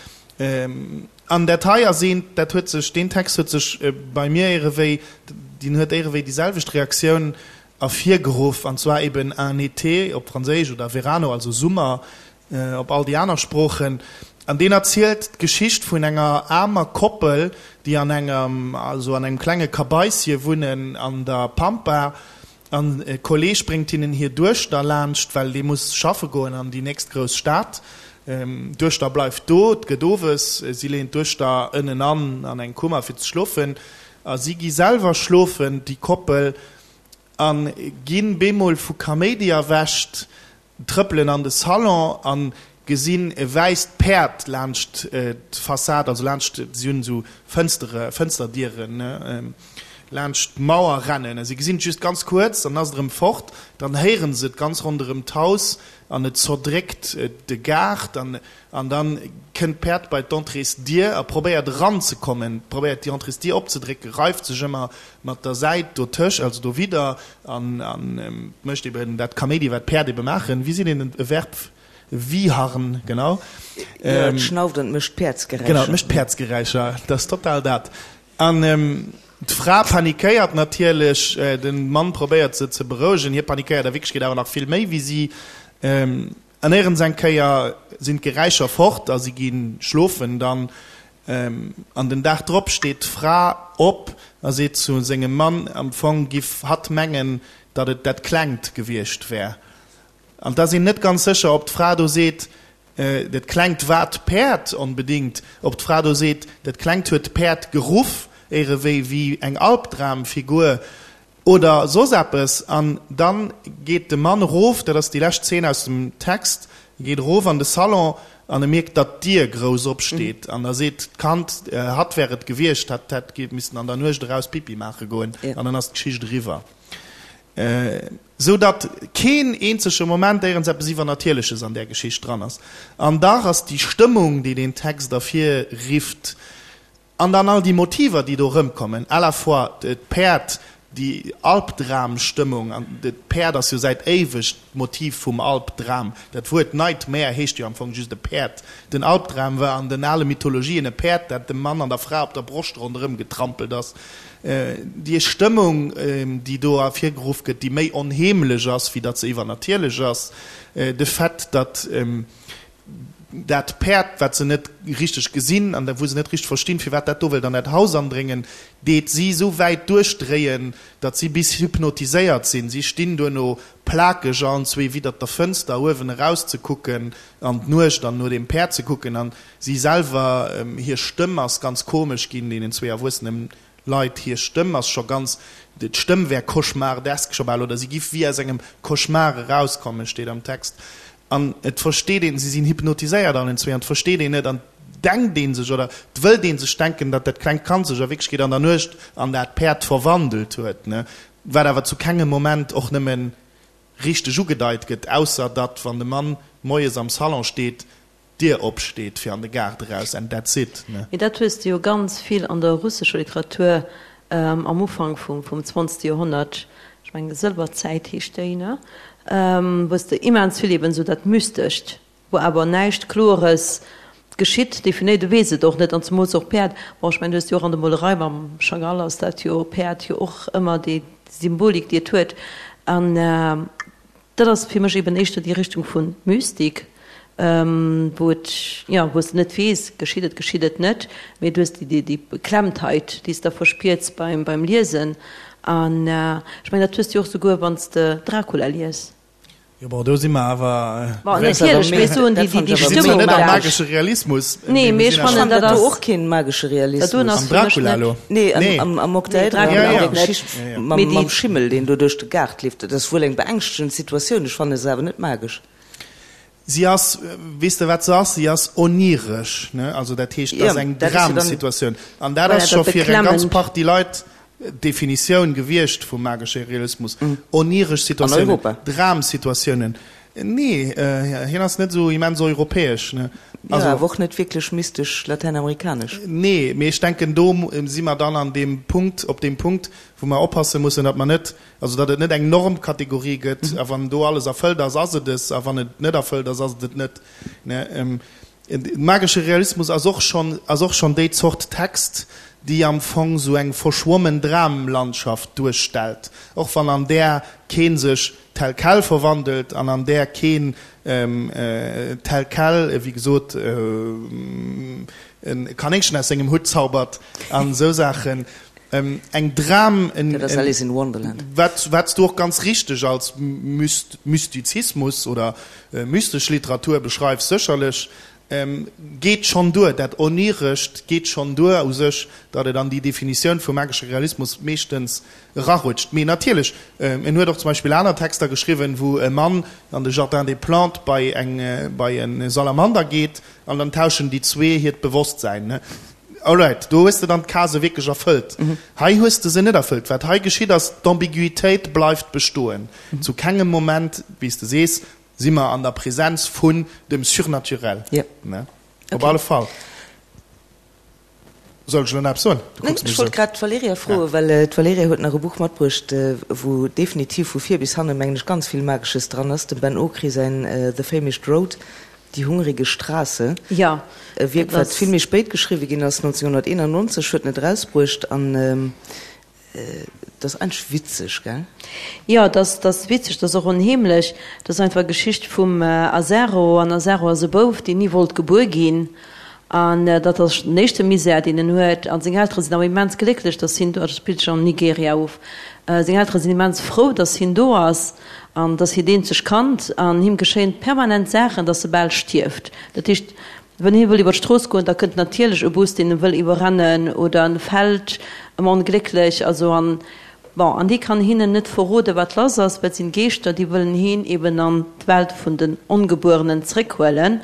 An dat hei ass eent, dat huet sech, deen Text huet sech bei mir éirewéi, deen huet éirewéi déi selwecht Reaktioun ervirgeruff, an zwar eben un été op Franséisch oder Verano, also Summer op all déi aner Sproochen. An deen erzielt d'Geschicht vun enger aarmer Koppel, déi an engem, also an engem klenge Kabaissie wunnen an der Pampa. An e Kolleeg bréngt hinnen hir Duechter laanscht, well dee muss schaffe goen an déi nächst grouss Stad. D'Duechter bleift do, et gëtt owes, si leeën d'Duechter ënnen an an eng Kummer fir ze schlofen. A si gi selwer schlofen, déi Koppel, a ginn bemol vu Kaméidi erwächt, trëppelen an de Salon a gesinn e wäisst Päerd laanscht d'Fassad, also laanscht, si hunn esou Fënstere, Fënsterdieren, ne, laanscht d'Mauer rennen. A si gesinn et just ganz kuerz, dann ass et erëm fort. Dann héiere se et ganz ronderëm d'Haus an et zerdréckt de Gaart. An An dann kënnt d'Päerd bei d'Entréesdier a probéiert eranzekommen, probéiert déi Entréesdier opzedrécken, reift sech ëmmer mat der Säit dotëscht, also dowidder, an mécht eben dat Kaméidi, wat d'Päerd ebe maachen. Wéi seet een e Verb? Wiharn, genau. Jo, et schnauft an et mécht Päerdsgeräischer. Genau, et mécht Päerdsgeräischer, dat ass total dat. An d'Fra panikéiert natierlech, de Mann probéiert se ze berouegen, hie panikéiert a Wierklechkeet awer nach vill méi wéi si. An éierens eng Kéier sinn d'Geräischer fort a si gi schlofen dann. An den Dag drop steet d'Fra op a seet zu sengem Mann, am Fong giff hatt mengen, datt et dat Klengt gewiescht wär. An 't ass een net ganz sécher, ob d'Fra do seet, dat Klengt war d'Päerd onbedingt, ob d'Fra do seet, dat Klengt huet d'Päerd geruff, éierewéi wéi eng Albdramfigur. Oder soss eppes. An dann geet de Mann erof, dat ass déi lescht Zeen aus dem Text, e geet erof an de Salon an e mierkt, datt d'Dier grouss opsteet. An da seet d'Kand, hatt wär et gewiescht, hatt hätt missen an der Nuecht eraus Pipi maache goen. An dann ass d'Geschicht eriwwer. Sou datt keen eenzege Moment éierens eppes Iwwernatierleches an där Geschicht dran ass. An dach ass déi Stëmmung, déi deen Text ervirrifft, An dann all déi Motiver, déi do erëmkommen, à la fois d'Päerd, déi Albdramstëmmung, an d'Päerd ass jo säit éiweg d'Motiv vum Albdram, dat Wuert Nightmare heescht jo am Fong just e Päerd. Den Albdram war an den ale Mythologien e Päerd, dat dem Mann an der Fra op der Broscht ronderëm getrampelt ass. Déi Stëmmung, déi do ervirgeruff gëtt, déi méi onheemlech ass, wéi datt se iwwernatierlech ass, de Fait, datt dat Päerd, wat se net richteg gesinn an wou se net richteg verstinn, firwat dat do wëllt an dat Haus andréngen, deet si esou wäit duerchdréien, datt si bis hypnotiséiert sinn. Si stinn duerno plakeg allenzwee widdert der Fënster, uewen erauszekucken an d'Nuecht an no deem Päerd ze kucken. An si selwer, hir Stëmm ass ganz komesch ginn, deenen zwee Erwuessenen Leit, hir Stëmm ass scho ganz, d'Stëmm wär cauchemardesk scho bal, oder si giff wéi aus engem Cauchemar erauskommen, steet am Text. An et versteet een, si sinn hypnotiséiert allen zwee, an et versteet een net, an et denkt ee sech, oder et wëllt ee sech denken, datt dat klengt Kand sech a Wierklechkeet an der Nuecht an dat Päerd verwandelt huet, ne, wat awer zu kengem Moment och nëmme richteg ugedeit gëtt, ausser datt, wann de Mann moies am Salon steet, d'Dier opsteet fir an de Gaart eraus and that's it, ne? Mee dat hues de jo ganz vill an der russescher Literatur am Ufank vum zwanzegste Joerhonnert, ech mengen Sëlwerzäit heescht déi, ne, wou s de immens vill eben esou dat Mystescht, wou awer näischt Klores. Geschitt, definéiert, du weess et och net, an zemools och Päerd, bon ech mengen du hues jo och an der Molerei mam Chagall ass dat jo, Päerd jo och ëmmer déi Symbolik déi et huet, an dat ass fir mech eben éischter déi Richtung vu Mystik, wou et, jo, wou s de net weess, geschitt et, geschitt et net, mee du hues déi déi Beklemmtheit déi s de da verspiers beim beim Liesen, an ech mengen dat hues de jo och souguer wann s de Dracula lies. Jo, bon, do si mer awer. Bon, natierlech, mee ech soen, déi, déi, déi Stëmmung. Net am magesche Realismus. Nee, mee ech fannen, dat ass. Do och keen magesche Realismus. Dat doen ass Am Dracula elo? Nee, am, am Okta Edra, an der Geschicht mam, mam Schimmel, deen do duerch de Gaart leeft. Dat ass wuel eng beängschtegend Situatioun, ech fanne se awer net magesch. Si ass, weess de wat se ass? Si ass oniresch, ne? Also dat heescht, dat ass eng Dramsituatioun. An dat ass scho fir eng ganz Partie Leit d'Definitioun gewiescht vum magesche Realismus. Oniresch Situatiounen, Dramsituatiounen. Nee, hien ass net esou immens europäesch, ne? Jo, awer och net wierklech mystesch latäinamerikanesch. Nee, mee ech denken, do si mer dann an deem Punkt, op deem Punkt, wou mer oppasse mussen, datt mer net Also datt et net eng Normkategorie gëtt, a wann do alles erfëllt ass, ass et es, a wann et net erfëllt ass, ass et et net. Magesche Realismus ass och schonn, ass och schonn déi Zort Text, déi am Fong sou eng verschwommen Dramlandschaft duerstellt, och wann an där kee sech tel quel verwandelt an an där keen tel quel, wéi gesot, e Kanéngchen aus sengem Hutt zaubert an esou Saachen. Eng Dram, Dat ass Alice in Wonderland. Wat wat s du och ganz richteg als Mystizismus oder mystesch Literatur beschreifs, sécherlech, geet schonn duer, dat Onirescht geet schonn duer u sech, datt et an déi Definitioun vum magesche Realismus meeschtens erarutscht. Mee natierlech, en huet och zum Beispill aner Texter geschriwwen, wou e Mann an de Jardin des Plantes bei eng bei e Salamander geet an dann tauschen déi zwee hiert Bewosstsäin. Alright, do hues de dann d'Casë wierklech erfëllt. Hei hues de se net erfëllt. Wat hei geschitt ass, d'Ambiguïtéit bleift bestoen. Zu kengem Moment, wéi s de sees, si mer an der Präsenz vun dem Surnaturel. Ne? Op alle Fall. Soll ech elo nach eppes soen? Du kucks mech esou. Ech wollt grad d'Valerija froen, well d'Valerija huet nach e Buch matbruecht, wou definitiv vu vir bis hanne, mengen ech, ganz vill Magesches dran ass, dem Ben Okri säin The Famished Road. Die hungrige Straße, Ja, e Wierk, wat vill méi spéit geschriwwe ginn ass, 1991 huet en et erausbruecht an et ass eigentlech witzeg, gell? Jo, et ass, et ass witzeg, et ass och onheemlech. Et ass einfach d'Geschicht vum Azaro an Azaro ass e Bouf, deen ni wollt gebuer ginn an dat ass den éischte Misär, deen en huet. A seng Eltere sinn awer immens glécklech, dass hien do ass, dat spillt sech an Nigeria of, seng Eltere sinn immens frou, dass hien do ass. An et ass hiert eenzegt Kand an him geschéien permanent Saachen, dass e bal stierft. Dat heescht, wann hie wëll iwwer d'Strooss goen, da kënnt natierlech e Bus, deen e wëll iwwerrennen oder en fält ëm onglécklech. Also an, bon, an hie kann hinnen net verroden, wat lass ass, well et sinn Geeschter, déi wëllen hien eben an d'Welt vun den Ongebuerenen zréckhuelen.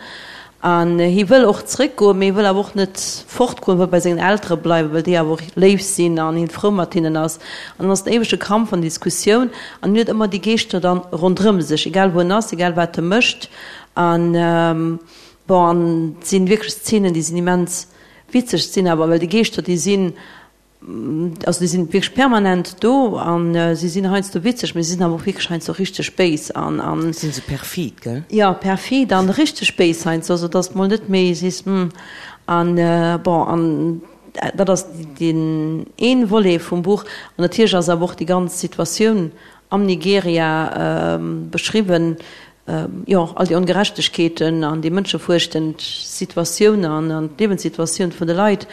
An hie wëll och zréckgoen, mee hie wëll awer och net fortgoen, wëll bei sengen Eltere bleiwen, well déi awer och léif sinn an hien frou mat hinnen ass. An dann ass den éiwege Kampf an Diskussioun an hien huet ëmmer déi Geeschter dann ronderëm sech, egal wou en ass, egal wat e mécht. An bon, an et sinn wierklech Szenen, déi sinn immens witzeg, sinn awer, well déi Geeschter, déi sinn Also déi sinn wierklech permanent do an si sinn heiansdo witzeg, mee si sinn awer och wierklech heiansdo richteg béis an an. Sinn se perfid, gell? Jo, perfid an richteg béis heiansdo, also dass de mol net méi sees, hm. An bon, an dat ass deen een Volet vum Buch. An natierlech ass awer och déi ganz Situatioun am Nigeria beschriwwen, jo, all déi Ongerechtegkeeten an déi mënschefuerchtend Situatioun an an d'Liewenssituatioun vun de Leit.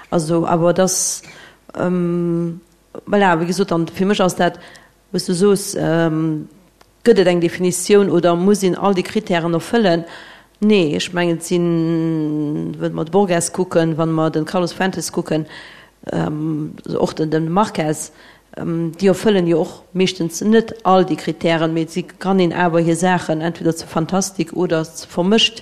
Also, awer et ass, voilà, wéi gesot, an fir mech ass dat, wou s du soos, gëtt et eng Definitioun oder muss een all déi Kritären erfëllen? Nee, ech mengen, et sinn, wa mer de Borges kucken, wa mer de Carlos Fuentes kucken, och den Marquez, Déi erfëllen jo och meeschtens net all déi Kritären, mee si kann een awer hir Saachen entweder ze Fantastik oder ze vermëscht.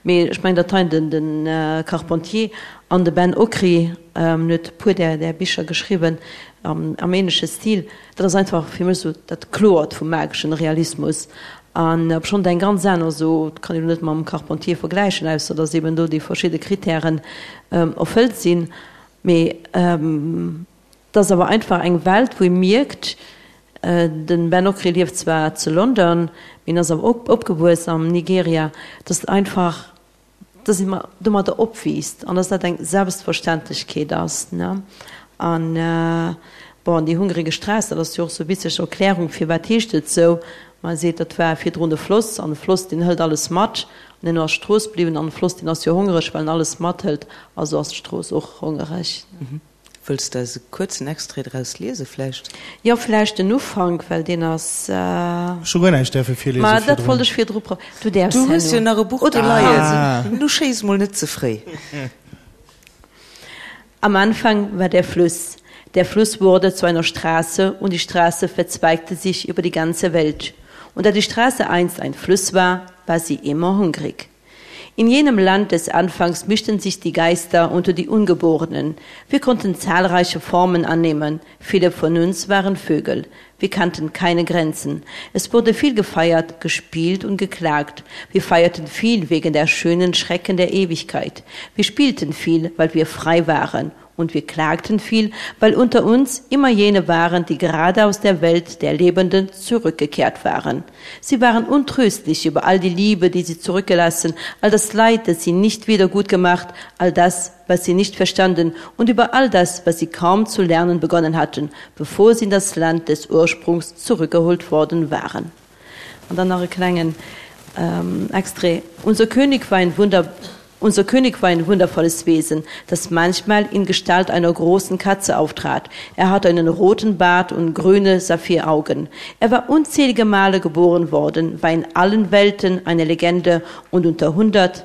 Mee ech mengen, datt hei den de Carpentier an de Ben Okri, en huet e puer där där Bicher geschriwwen am am ähnleche Stil, dat ass einfach fir mech esou dat Kloert vum mageschen Realismus. An obschonn et eng ganz aner, esou, dat kann een elo net mam Carpentier vergläichen, ausser datt eben do déi verschidde Kritären erfëllt sinn, mee Et ass awer einfach eng Welt, wou ee mierkt, de Ben Okri lieft zwar zu London, mee en ass awer opgewuess am Nigeria, dass et einfach. dass ee domadder opwiisst an dass dat eng Selbstverständlechkeet ass, ne. An, bon, déi hungrige Straße, dat ass jo och sou witzeg Erklärung, firwat heescht et sou, Ma e seet, dat war virdrun e Floss, an e Floss, deen hëlt alles mat. An herno ass d'Strooss bliwwen, an e Floss, deen ass jo hongereg, well en alles mathëlt, also ass d'Strooss och hongereg. Wëlls de eis e kuerzen Extrait draus liese vläicht? Jo, vläicht den Ufank, well deen ass. Ech hu guer näischt däerfe virliese Ma dat wollt ech virdru pro. Du däerfs Du hues jo nach e Buch do leien. Nu schéiss mol net ze fréi. Am Anfang war der Fluss. Der Fluss wurde zu einer Straße und die Straße verzweigte sich über die ganze Welt. Und da die Straße einst ein Fluss war, war sie immer hungrig. In jenem Land des Anfangs mischten sich die Geister unter die Ungeborenen. Wir konnten zahlreiche Formen annehmen. Viele von uns waren Vögel. Wir kannten keine Grenzen. Es wurde viel gefeiert, gespielt und geklagt. Wir feierten viel wegen der schönen Schrecken der Ewigkeit. Wir spielten viel, weil wir frei waren und wir klagten viel, weil unter uns immer jene waren, die gerade aus der Welt der Lebenden zurückgekehrt waren. Sie waren untröstlich über all die Liebe, die sie zurückgelassen, all das Leid, das sie nicht wieder gut gemacht, all das, was sie nicht verstanden und über all das, was sie kaum zu lernen begonnen hatten, bevor sie in das Land des Ursprungs zurückgeholt worden waren. Und dann nach e klengen ähm, Extrait. Unser König war ein Wunder Unser König war ein wundervolles Wesen, das manchmal in Gestalt einer großen Katze auftrat. Er hatte einen roten Bart und grüne Saphiraugen. Er war unzählige Male geboren worden, war in allen Welten eine Legende und unter 100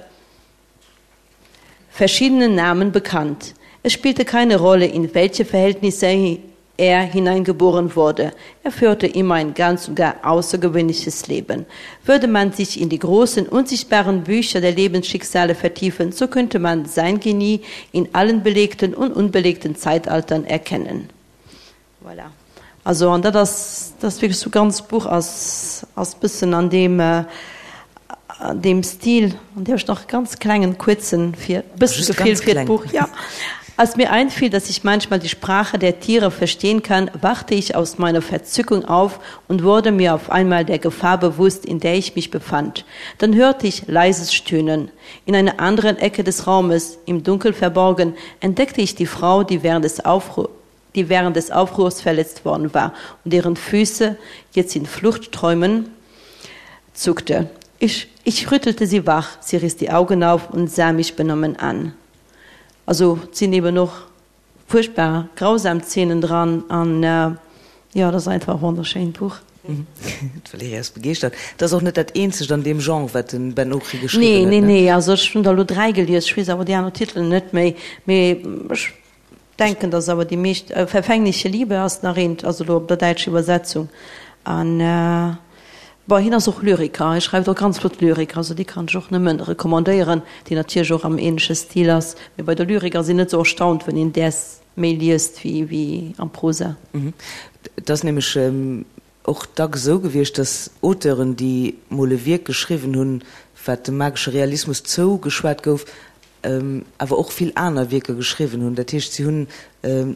verschiedenen Namen bekannt. Es spielte keine Rolle, in welche Verhältnisse er hineingeboren wurde. Er führte immer ein ganz und gar außergewöhnliches Leben. Würde man sich in die großen, unsichtbaren Bücher der Lebensschicksale vertiefen, so könnte man sein Genie in allen belegten und unbelegten Zeitaltern erkennen. Voilà. Also an dat ass, dat ass wierklech sou ganz Buch ass ass bëssen an deem an deem Stil, an dierf ech nach e ganz klengen kuerzen fir bëssen Just Gefill ganz fir kleng. d'Buch, ja. Als mir einfiel, dass ich manchmal die Sprache der Tiere verstehen kann, wachte ich aus meiner Verzückung auf und wurde mir auf einmal der Gefahr bewusst, in der ich mich befand. Dann hörte ich leises Stöhnen. In einer anderen Ecke des Raumes, im Dunkel verborgen, entdeckte ich die Frau, die während des Aufru die während des Aufruhrs verletzt worden war und deren Füße jetzt in Fluchtträumen zuckte. Ich, ich rüttelte sie wach, sie riss die Augen auf und sah mich benommen an. Also et sinn eben och furchtbar grausam Zeenen dran an jo, et ass einfach e wonnerschéint Buch. D'Valerija ass begeeschtert. Et ass och net dat eenzegt an deem Genre, wat de Ben Okri geschriwwen Nee, huet, nee, ne? nee, also ech hunn der elo 3 gelies, ech weess awer déi aner Titelen net méi, mee ech Denken dass awer déi meescht, Verfängliche Liebe ass nach eent, also elo op der däitscher Iwwersetzung. An bon, hien ass och Lyriker, hie schreift och ganz flott Lyrik, also déi kann ech och nëmmen recommandéieren, déi natierlech och am ähnleche Stil ass. Mee bei der Lyrik ass een net sou erstaunt, wann een däers méi liest wéi wéi am Prosa. Et ass nämlech och dacks esou gewiescht, dass Auteuren, déi mol e Wierk geschriwwen hunn, wat dem magesche Realismus zougeschwat gouf, awer och vill aner Wierker geschriwwen hunn. Dat heescht, si hunn,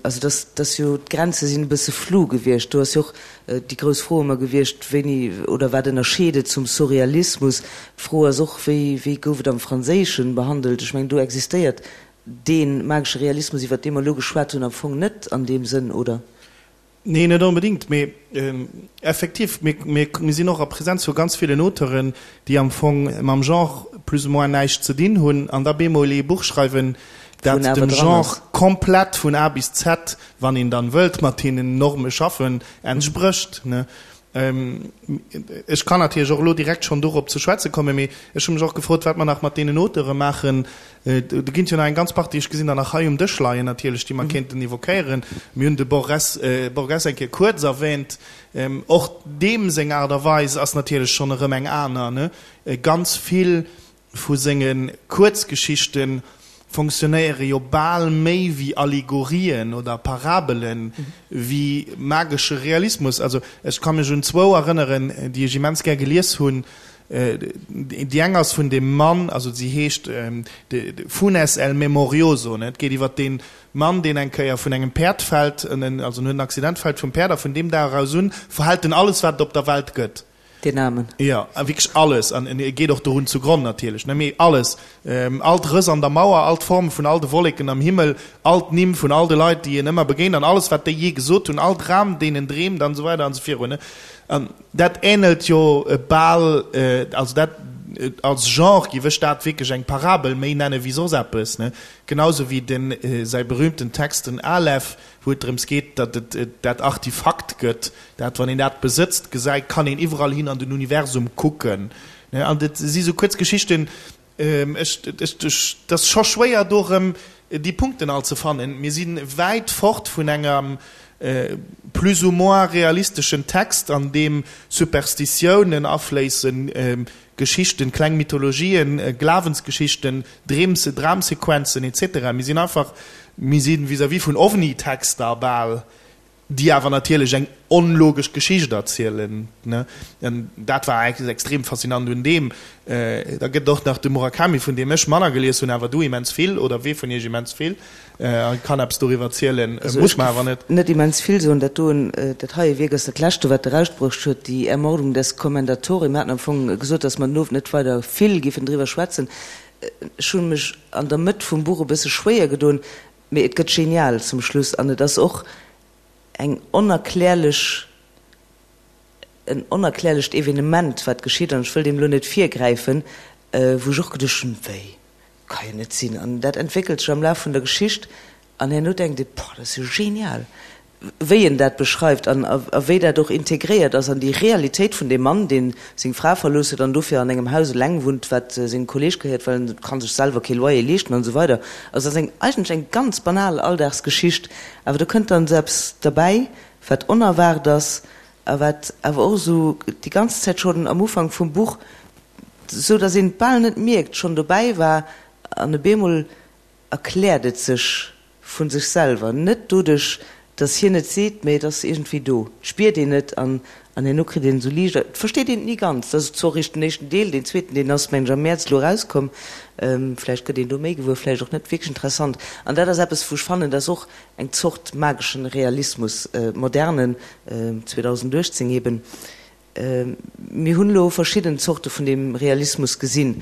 also dass, dass jo d'Grenze sinn e bësse flou gewiescht. Do ass jo och déi grouss Fro ëmmer gewiescht, wéini oder wat ënnerscheet et zum Surrealismus? D'Fro ass och, wéi, wéi gouf et am Franséischen behandelt? Ech mengen, do existéiert dee magesche Realismus, iwwert dee mer elo geschwat hunn, am Fong net an deem Sënn, oder? Nee, net onbedéngt, mee effektiv, mir sinn och a Präsenz vu ganz villen Auteuren, déi am Fong mam Genre plus ou moins näischt ze dinn hunn an da bemol ee Buch schreiwen, dat dem Genre komplett vun A bis Z, wann een dann wëllt mat deenen Norme schaffen, entsprécht. Ech kann natierlech och elo direkt schonn dorop ze schwätze kommen, mee ech hu mech och gefrot, wat mer nach mat deenen Auteure maachen. Do ginn et jo nach eng ganz Partie, ech gesinn der nach hei um Dësch leien natierlech, déi mer kéinten évoquéieren. Mir hunn de Borges, Borges eng Kéier kuerz erwähnt. Och deem seng Aart a Weis ass natierlech schonn erëm eng aner, ne? Ganz vill vu senge Kuerzgeschichte fonctionnéiere jo bal méi wéi Allegorien oder Parabelen, wéi magesche Realismus. Also ech ka mech un zwou erënneren, déi ech immens gär gelies hunn. Déi eng ass vun deem Mann, also si heescht Funes el Memorioso, et geet iwwer dee Mann, deen eng Kéier vun engem Päerd fält, also en huet en Accident, fält vum Päerd a vun deem Dag aus un verhält en alles, wat et op der Welt gëtt. Deen Aarmen. Jo, a wierklech alles. An e geet och dorun zugronn natierlech, ne? Mee alles, all d'Rëss an der Mauer, all d'Forme vun all de Wolleken am Himmel, all d'Nimm vun all de Leit, déi en ëmmer begéint, an alles, wat déi jee gesot hunn, all Dram, deen en dreemt, an esou weider an esou virun, ne? An dat änelt jo bal, also dat als Genre giff ech dat wierklech eng Parabel méi nenne wéi soss eppes, ne? Genausou wéi den säi berühmten Text, den Aleph, wou et drëms geet, datt et dat Artifakt gëtt, dat, wann een dat besëtzt, gesäit, kann een iwwerall hin an den Universum kucken. An et si sou kuerz Geschichten, ech, ech, et ass scho schwéier, do erëm déi Punkten all ze fannen. Mir si wäit fort vun engem plus ou moins realisteschen Text, an deem Superstitiounen afléissen, Geschichten, kleng Mythologien, Glawensgeschichten, Dreem, Dramsequenzen etc. Mir sinn einfach, mir si vis-à-vis vun OVNI-Texter bal, déi awer natierlech eng onlogesch Geschicht erzielen, ne? An dat war extrem faszinant un deem. Da gëtt et och nach de Murakami, vun deem ech manner gelies hunn, awer du immens vill, oder wee vun iech immens vill. A kann eppes doriwwer zielen, muss mer awer net. Net immens vill soen. Dat doen, dat heie Wierk ass dat leschte, wat erausbruecht huet, Die Ermordung des Commendatore. Mir haten am Fong gesot, datt mer den Owend net weider vill giffen driwwer schwätzen. Ech hu mech an der Mëtt vum Buch e bësse schwéier gedoen, mee et gëtt genial zum Schluss an et ass och eng onerklärlech, en onerklärlecht Evenement, wat geschitt, an ech wëll deem elo net virgräifen, wou ech och geduecht hunn, Wéi? Ka jo net sinn. An dat entwéckelt sech am Laf vun der Geschicht an herno denkt ee, Boah, dat ass jo genial, wéi en dat beschreift an a wéi dat och integréiert ass an déi Realitéit vun deem Mann, dee seng Fra verlooss huet an dofir an engem Haus eleng wunnt, wat sengem Kolleeg gehéiert, well en ka sech selwer kee Loyer leeschten an esou weider. Also dat ass eng eigentlech eng ganz banal Alldagsgeschicht, awer do kënnt dann esou eppes derbäi, wat onerwaart ass a wat awer och esou déi ganz Zäit schonn am Ufank vum Buch, esou datt een et bal net mierkt, schonn dobäi war an op eemol erkläert et sech vu sech selwer, net doduerch, datt hien et seet, mä et ass iergendwéi do, et spiert een et an an herno kritt een esou liicht, et versteet een et ni ganz. Dat ass zwar och eréischt den éischten Deel, deen zweeten, deen ass, mengen ech, am Mäerz elo erauskomm, vläicht gëtt een do méi gewuer, vläicht och net, wierklech interessant. An dat ass eppes, wou ech fannen, datt och eng Zort mageschen Realismus, modernen, 2018 eben. Mir hunn elo verschidden Zorte vun deem Realismus gesinn.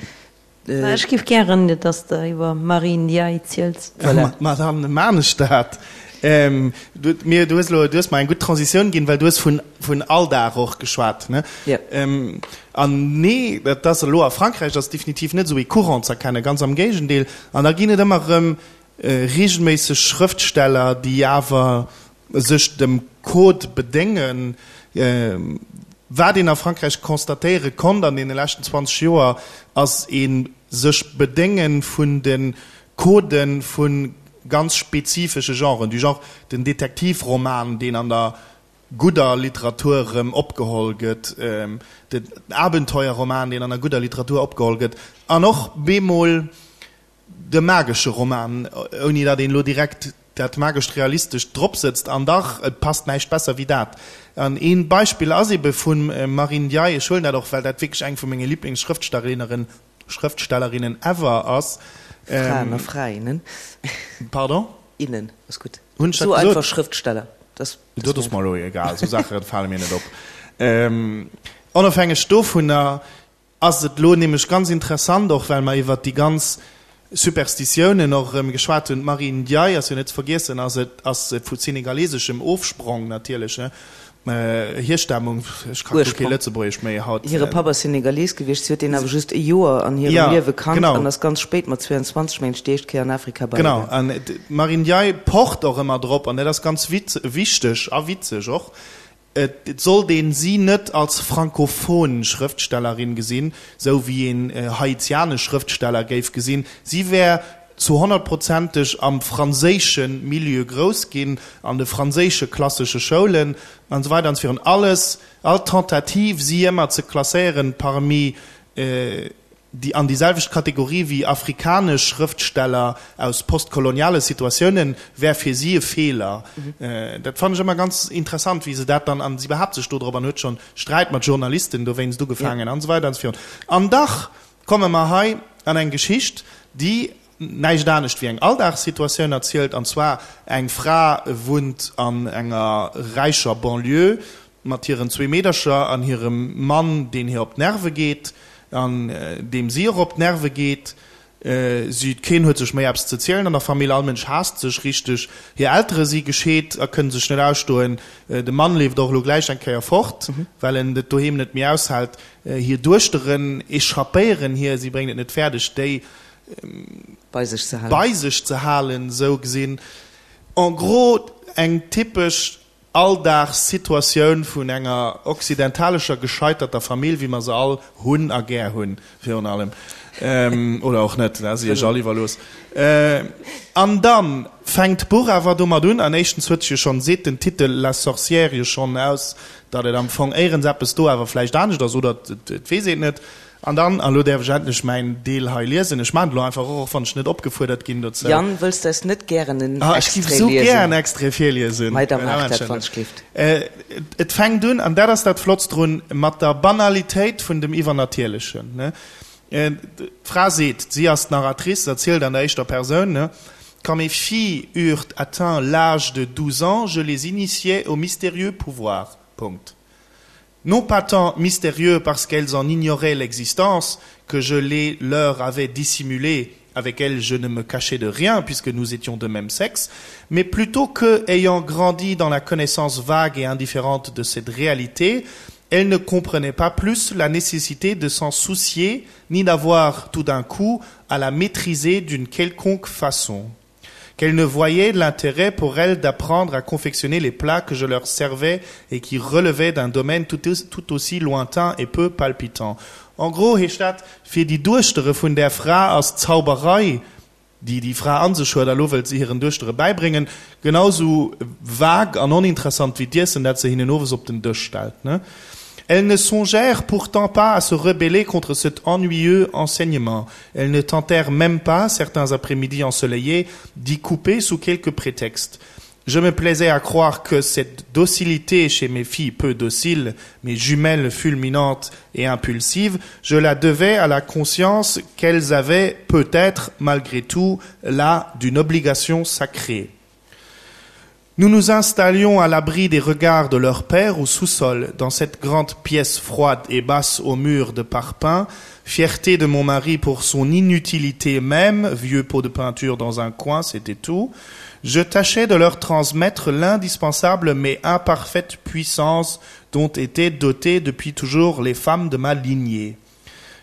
Mä ech giff gären, dass de iwwer Marie Ndiaye ziels. Voilà. Ma dann maan ech dat. Du, mir, du hues elo, du hues mer eng gutt Transitioun ginn, well du hues vun, vun Alldag och geschwat, ne? Jo. An nee, dat ass elo a Frankräich ass definitiv net esou ee Courant z'erkennen, ganz am Géigendeel. An da ginn et ëmmer erëm regelméisseg Schrëftsteller, déi awer sech dem Code bedéngen. Wat een a Frankräich constatéiere konnt an deene leschten 20 Joer, ass ee sech bedénge vun de Codë vu ganz spezifesche Genren, du genre den Detektivroman, deen an der gudder Literatur erëm opgeholl gëtt, den Abenteuerroman, deen an der gudder Literatur opgeholl gëtt, an och bemol De magesche Roman, ouni datt een elo direkt dat magescht Realistescht drop sëtzt, an dach, et passt näischt besser wéi dat. An ee Beispill ass ebe vum Marie Ndiaye, ech huelen dat och, well dat wierklech eng vu menge Liblingsschrëftstellerinnen, Schrëftstellerinnen ever ass. Fraen a Frainnen. Pardon? Innen, ass gutt. Hunn ech dat So gesot? einfach Schrëftsteller. Dat Dat ass mer elo egal, esou Saache fale mir net op. Onofhängeg dovunner Ass et elo nämlech ganz interessant, och well mer iwwert déi ganz Superstitiounen och erëm geschwat hunn, d'Marie Ndiaye ass jo net ze vergiessen, ass et ass vu senegaleseschem Ofsprong natierlech, ne, Hierstammung, ech ka guer kee Lëtzebuergesch méi haut. Hire Papp ass Senegalees gewiescht, si huet deen awer just e Joer an hirem Liewe kannt an ass ganz spéit, mat 22 mengen ech, déi éischt Kéier an Afrika bei Genau, an d'Marie Ndiaye pocht och ëmmer drop, an dat ass ganz wichteg a witzeg och, Et sollt een si net als frankophon Schrëftstellerin gesinn, sou wéi een haitianesch Schrëftsteller géif gesinn. Si wär zu honnertprozenteg am franséische Milieu grouss ginn, an de franséische klassesche Schoulen an esou weider an esou virun. Alles, all Tentative, si ëmmer ze klasséieren parmi déi an déi selwecht Kategorie wéi afrikanesch Schrëftsteller aus postkoloniale Situatiounen, wär fir si e Feeler. Dat fannen ech ëmmer ganz interessant, wéi se dat dann, an si behaapt sech do drop an huet schonn Sträit mat Journalisten dowéinst ugefaangen an esou weider an esou virun. An dach komme mer hei an eng Geschicht, déi näischt anescht wéi eng Alldagssituatioun erzielt, an zwar eng Fra wunnt an enger räicher Banlieue. mat hiren zwee Meedercher an hirem Mann, deen hir op d'Nerve geet an deem si och op d'Nerve geet. Si, keen huet sech méi eppes ze zielen an der Famill, all Mënsch haasst sech richteg. Hir Eltere si gescheet a kënne sech net ausstoen. De Mann leeft och elo gläich eng Kéier fort, well en et doheem net méi aushält. Hir Duechteren echappéieren hir, si bréngt et net fäerdeg, déi bei sech ze halen. Bei sech ze halen, esou gesinn. En gros eng typesch Alldagssituatioun vun enger occidentalescher gescheiterter Famill, wéi mer se all hunn a gär hunn, virun allem. Oder och net, dat ass Iech all iwwerlooss. An da fänkt d'Buch awer domat un, an éischtens huet sech jo schonn, seet den Titel La sorcière jo schonn aus, datt et am Fong éierens eppes do awer vläicht anescht ass, oder et weess een et net. An dann, a lo däerf ech endlech mäin Deel hei liesen, ech maachen et elo einfach och, och wann ech net opgefuerdert ginn dozou. Yann, wëlls d'eis net gären en Ah, ech giff Extrait esou gär en liesen? Extrait virliesen. Mei, da maach dat, wann ech gleeft. Et fänkt un, an dat ass dat Flottst drun, mat der Banalitéit vun dem Iwwernatierlechen. D'Fra seet, si ass d'Narratrice, erzielt an der éischter Persoun, Quand mes filles eurent atteint l'âge de douze ans, je les initiai au mystérieux pouvoir. Punkt. Non pas tant mystérieux parce qu'elles en ignoraient l'existence, que je les leur avais dissimulé, avec elles je ne me cachais de rien puisque nous étions de même sexe, mais plutôt que, ayant grandi dans la connaissance vague et indifférente de cette réalité, elles ne comprenaient pas plus la nécessité de s'en soucier ni d'avoir tout d'un coup à la maîtriser d'une quelconque façon qu'elle ne voyait l'intérêt pour elle d'apprendre à confectionner les plats que je leur servais et qui relevaient d'un domaine tout, tout aussi lointain et peu palpitant. En gros heescht dat, fir déi Duechtere vun där Fra ass d'Zauberei, déi déi Fra an sech huet a lo wëllt se hiren Duechtere bäibréngen, genau sou vague an oninteressant wéi d'Iessen, dat se hinnen owes op den Dësch stellt. Elles ne songèrent pourtant pas à se rebeller contre cet ennuyeux enseignement. Elles ne tentèrent même pas, certains après-midi ensoleillés, d'y couper sous quelque prétexte. Je me plaisais à croire que cette docilité chez mes filles peu dociles, mes jumelles fulminantes et impulsives, je la devais à la conscience qu'elles avaient peut-être, malgré tout, là d'une obligation sacrée. Nous nous installions à l'abri des regards de leur père au sous-sol, dans cette grande pièce froide et basse au mur de parpaing, fierté de mon mari pour son inutilité même, vieux pot de peinture dans un coin, c'était tout. Je tâchais de leur transmettre l'indispensable mais imparfaite puissance dont étaient dotées depuis toujours les femmes de ma lignée.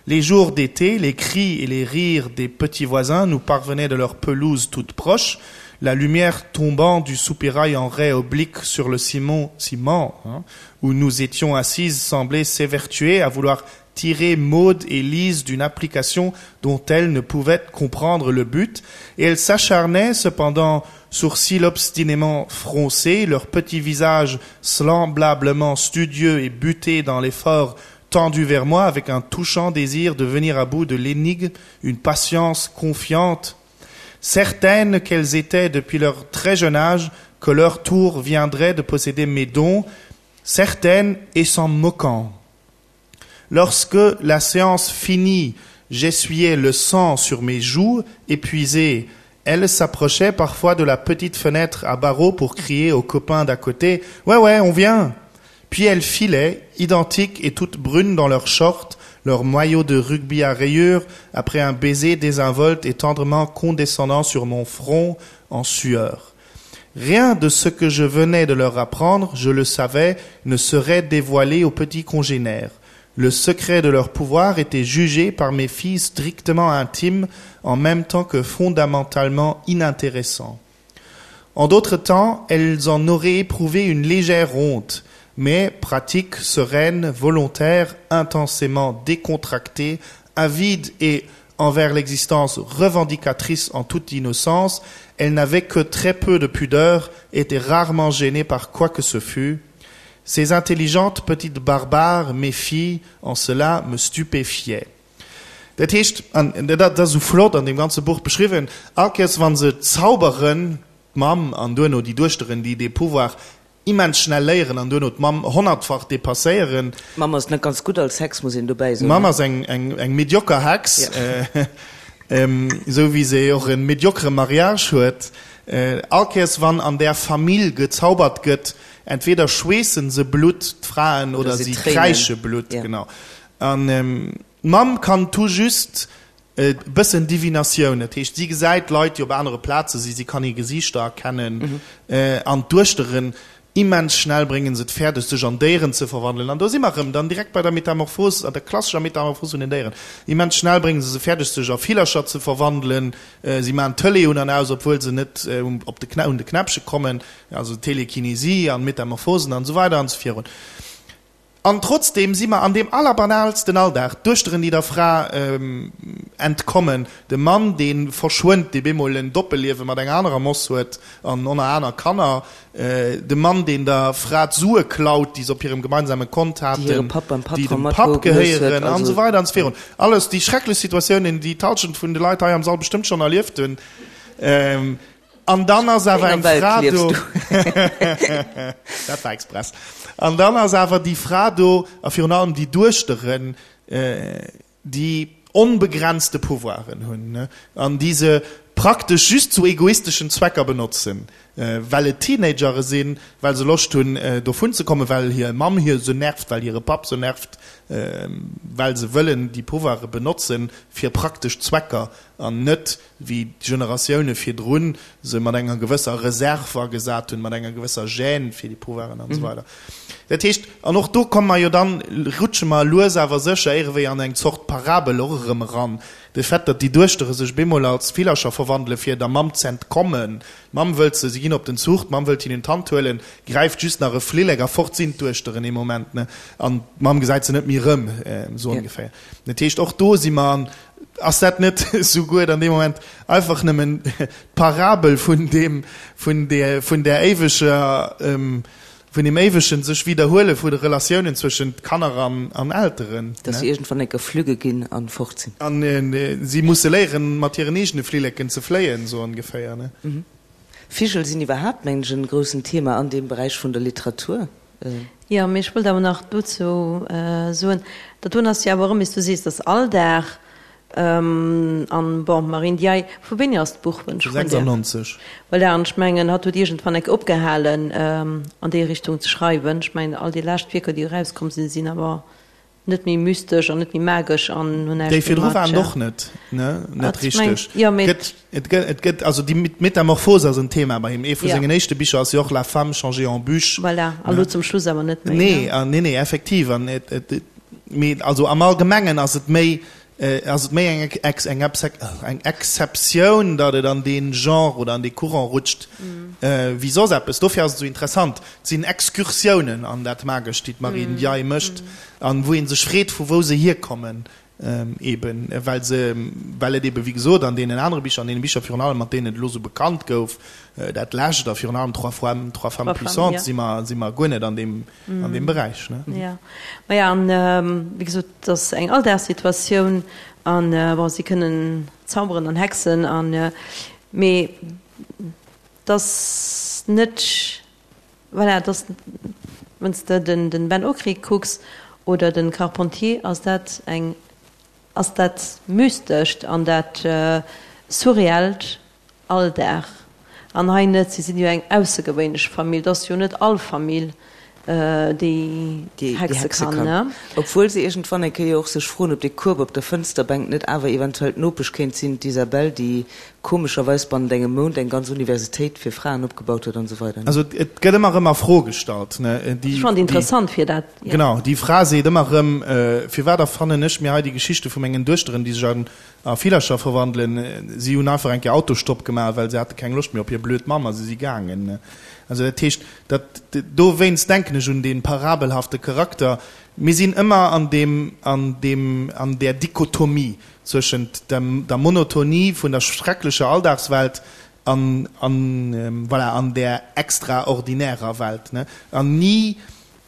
Les jours d'été, les cris et les rires des petits voisins nous parvenaient de leur pelouse toute proche, la lumière tombant du soupirail en raie oblique sur le ciment, ciment hein, où nous étions assises semblait s'évertuer à vouloir tirer Maud et Lise d'une application dont elles ne pouvaient comprendre le but, et elles s'acharnaient cependant, sourcils obstinément froncés, leurs petits visages semblablement studieux et butés dans l'effort tendu vers moi avec un touchant désir de venir à bout de l'énigme, une patience confiante, certaines qu'elles étaient depuis leur très jeune âge, que leur tour viendrait de posséder mes dons, certaines et s'en moquant. Lorsque la séance finie, j'essuyais le sang sur mes joues, épuisé. Elle s'approchait parfois de la petite fenêtre à barreaux pour crier aux copains d'à côté: Ouais, ouais, on vient! Puis elle filait, identique et toute brune dans leurs shorts, leur maillot de rugby à rayures, après un baiser désinvolte et tendrement condescendant sur mon front en sueur. Rien de ce que je venais de leur apprendre, je le savais, ne serait dévoilé aux petits congénères. Le secret de leur pouvoir était jugé par mes filles strictement intimes, en même temps que fondamentalement inintéressant. En d'autres temps, elles en auraient éprouvé une légère honte, mais pratique, sereine, volontaire, intensément décontractée, avide et envers l'existence revendicatrice en toute innocence, elles n'avaient que très peu de pudeur, étaient rarement gênées par quoi que ce fût. Ces intelligentes petites barbares, mes filles, en cela me stupéfiaient. Dat heescht, an dat ass esou flott an deem ganze Buch beschriwwen, all Kéiers wa se zauberen, d'Mamm an duerno déi Duechteren, déi dee Pouvoir immens schnell léieren an duerno d'Mamm honnertfach depasséieren. D'Mamm ass net ganz gutt als Hex, muss een dobäi soen. D'Mamm ass eng, eng, eng medioker Hex. Esou wéi se och e mediocre Mariage huet. All Kéiers wann an där Famill gezaubert gëtt, entweder schweessen se Blutt, d'Fraen, oder si kräische Blutt. Genau. An d'Mamm kann tout juste e bëssen Divinatioun, dat heescht si gesäit Leit, déi op anere Plaze si, si kann hir Gesiichter erkennen. An d'Duechteren Immens schnell bréngen se et fäerdeg, sech an Déieren ze verwandelen. An do si mer erëm dann direkt bei der Metamorphos, an der klassescher Metamorphos vun den Déieren. Immens schnell bréngen se se fäerdeg, sech a Villercher ze verwandelen. Si maachen d'Tëlee un an aus, obwuel se net op de un de Knäppche kommen. Also Telekinesie an Metamorphosen an esou weider an esou virun. An trotzdeem si mer an deem allerbanaalsten Alldag, d'Duechteren, déi der Fra entkommen, de Mann, dee verschwënnt, dee bemol en Doppelliewe mat enger anerer Moss huet an oner aner Kanner, de Mann, deen der Fra d'Sue klaut, déi se op hirem gemeinsame Kont haten, déi dem Papp gehéieren, an esou weider an esou virun. Alles déi schrecklech Situatiounen, déi d'Halschent vun de Leit hei am Sall bestëmmt schonn erlieft hunn. An dann ass awer eng Fra do. Dat war express. An dann ass awer déi Fra do, a virun allem déi Duechteren, déi onbegrenzte Pouvoiren hunn, an déi se praktesch just zu egoisteschen Zwecker benotzen, well et Teenagere sinn, well se Loscht hunn, dovun ze kommen, well hir Mamm hir se nervt, well hire Papp se nervt, well se wëllen déi Pouvoire benotzen fir praktesch Zwecker an net wéi d'Generatioune virdrun se mat enger gewësser Reserve agesat hunn, mat enger gewësser Gêne fir déi Pouvoiren an esou weider. Dat heescht, an och do komme mer jo dann, rutsche mer lues awer sécher ierewéi an eng Zort Parabel och erëm eran, de Fait, datt déi Duechtere sech bemol als Villercher verwandele fir der Mamm z'entkommen. D'Mamm wëllt se, si ginn op den Zuch, d'Mamm wëllt hinnen d'Hand huelen, gräift just nach e Flillek a fort sinn d'Duechteren ee Moment, ne, an d'Mamm gesäit se net méi erëm, esou ongeféier. Dat heescht, och do si mer an Ass dat net souguer dann dee Moment einfach nëmmen d'Parabel vun deem, vun där, vun där éiweger, vun deem éiwegen sech widderhuele vu de Relatiounen zwëschent Kanner an, an Elteren? Dass se iergendwann eng Kéier flügge ginn an fort sinn. An si musse léieren, mat hiren eegene Flilleken ze fléien, sou ongeféier, ne? Vigel sinn iwwerhaapt, mengen ech, en groussen Thema an deem Beräich vun der Literatur. Jo, mee ech wollt awer nach dozou soen, dat doen ass jo awer erëm, wéi s du sees, dass Alldag an, bon, Marie Ndiaye, vu wéini ass d'Buch, wann ech froen däerf? 96. Voilà, an ech mengen, hatt huet iergendwann enk opgehalen, an déi Richtung ze schreiwen. Ech mengen, all déi lescht Wierker, déi erauskomm sinn, sinn awer Net méi mystesch an net méi magesch an hunn näischt Déi méi virdru mat. waren och net, ne, net richteg. Jo, mee. Gëtt, et gëtt, et gëtt, also déi Metamorphose ass en Thema bei him. Ee vu sengen éischte Bicher ass jo och La femme changée en bûche. Voilà, a lo zum Schluss awer net méi, ne? Nee, nee, nee, effektiv. An et, et, mee also am Allgemengen ass et méi, Ass et méi eng eng Exceptioun, datt et an dee Genre oder an dee Courant rutscht, wéi soss eppes. Dofir ass et esou interessant. Et sinn Excursiounen an dat Magescht, déi d'Marie Ndiaye mécht, an wou ee sech freet, vu wou se hierkommen, eben well se, well et eben, wéi gesot, an deenen anere Bicher, an deene Bicher virun allem, mat deenen et elo esou bekannt gouf, dat lescht a virun allem Trois femmes, Trois femmes puissantes, si mer, si mer guer net an deem, an deem Beräich. Ne? Ja, maja, an wéi gesot, et ass eng Alldagssituatioun an bon, si kënnen zauberen an hexen an, mee et ass net, voilà, et ass, wann s de den Ben Okri kucks oder den Carpentier, ass dat eng, ass dat Mystescht an dat Surreellt Alldag. An hei net. Si sinn jo eng aussergewéinlech Famill. Et ass jo net all Famill, déi hexe kann. Obwuel se iergendwann eng Kéier och sech froen, ob dee Kueb op der Fënsterbänk net awer eventuell d'Nopesch kéint sinn, d'Isabelle, déi komescherweis bannent engem Mount eng ganz Universitéit fir Fraen opgebaut huet an esou weider. Also et gëtt ëmmer erëm a Fro gestallt, ne? Ech fannen et interessant fir dat, jo. Genau, déi Fra seet ëmmer erëm, Firwat erfannen ech mir hei déi Geschichte vu mengen Duechteren, déi sech an A Villercher verwandelen. Si hunn einfach eng Kéier Autostopp gemaach, well se hate keng Loscht méi op hir blöd Mamm a se si gaangen. Also dat heescht, dat, dowéinst denken ech un dee parabelhafte Charakter. Mir sinn ëmmer an deem, an deem, an där Dichotomie zwëschent dem, der Monotonie vun der schrecklecher Alldagswelt an, an, voilà, an där extraordinärer Welt, ne? An ni.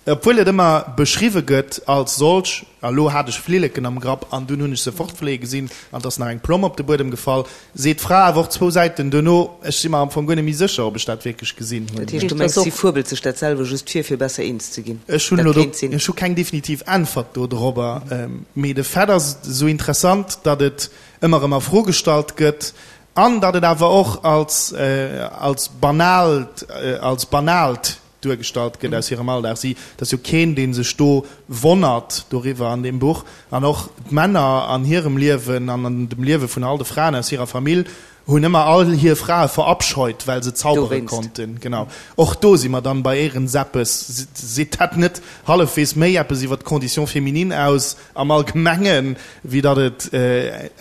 Obwuel et ëmmer beschriwwe gëtt als solch, a lo hat ech Flilleken am Grapp an dunn hunn ech se fortfléie gesinn an et ass nach eng Plomm op de Buedem gefall, seet d'Fra awer och zwou Säiten duerno, ech si mer am Fong guer net méi sécher, ob ech dat wierklech gesinn hunn. Dat heescht, du mengs, si fuebelt sech dat selwer just vir, fir besser eens ze ginn? Ech hunn elo do, ech hu keng definitiv Äntwert do dorobber, mee de Fait ass esou interessant, datt et ëmmer erëm a Fro gestallt gëtt an datt et awer och als, als banaalt, als banaalt duergestallt gëtt aus hirem Alldag. Si, et ass jo keen, dee sech do wonnert doriwwer an deem Buch. An och d'Männer an hirem Liewen an an dem Liewe vun all de Fraen aus hirer Famill hunn ëmmer all hir Frae verabscheut, well se zaubere konnten. Genau. Och do si mer dann bei Éirenseppes. Seet dat net hallefwegs méi eppes iwwer d'Condition féminine aus am Allgemengen, wéi datt et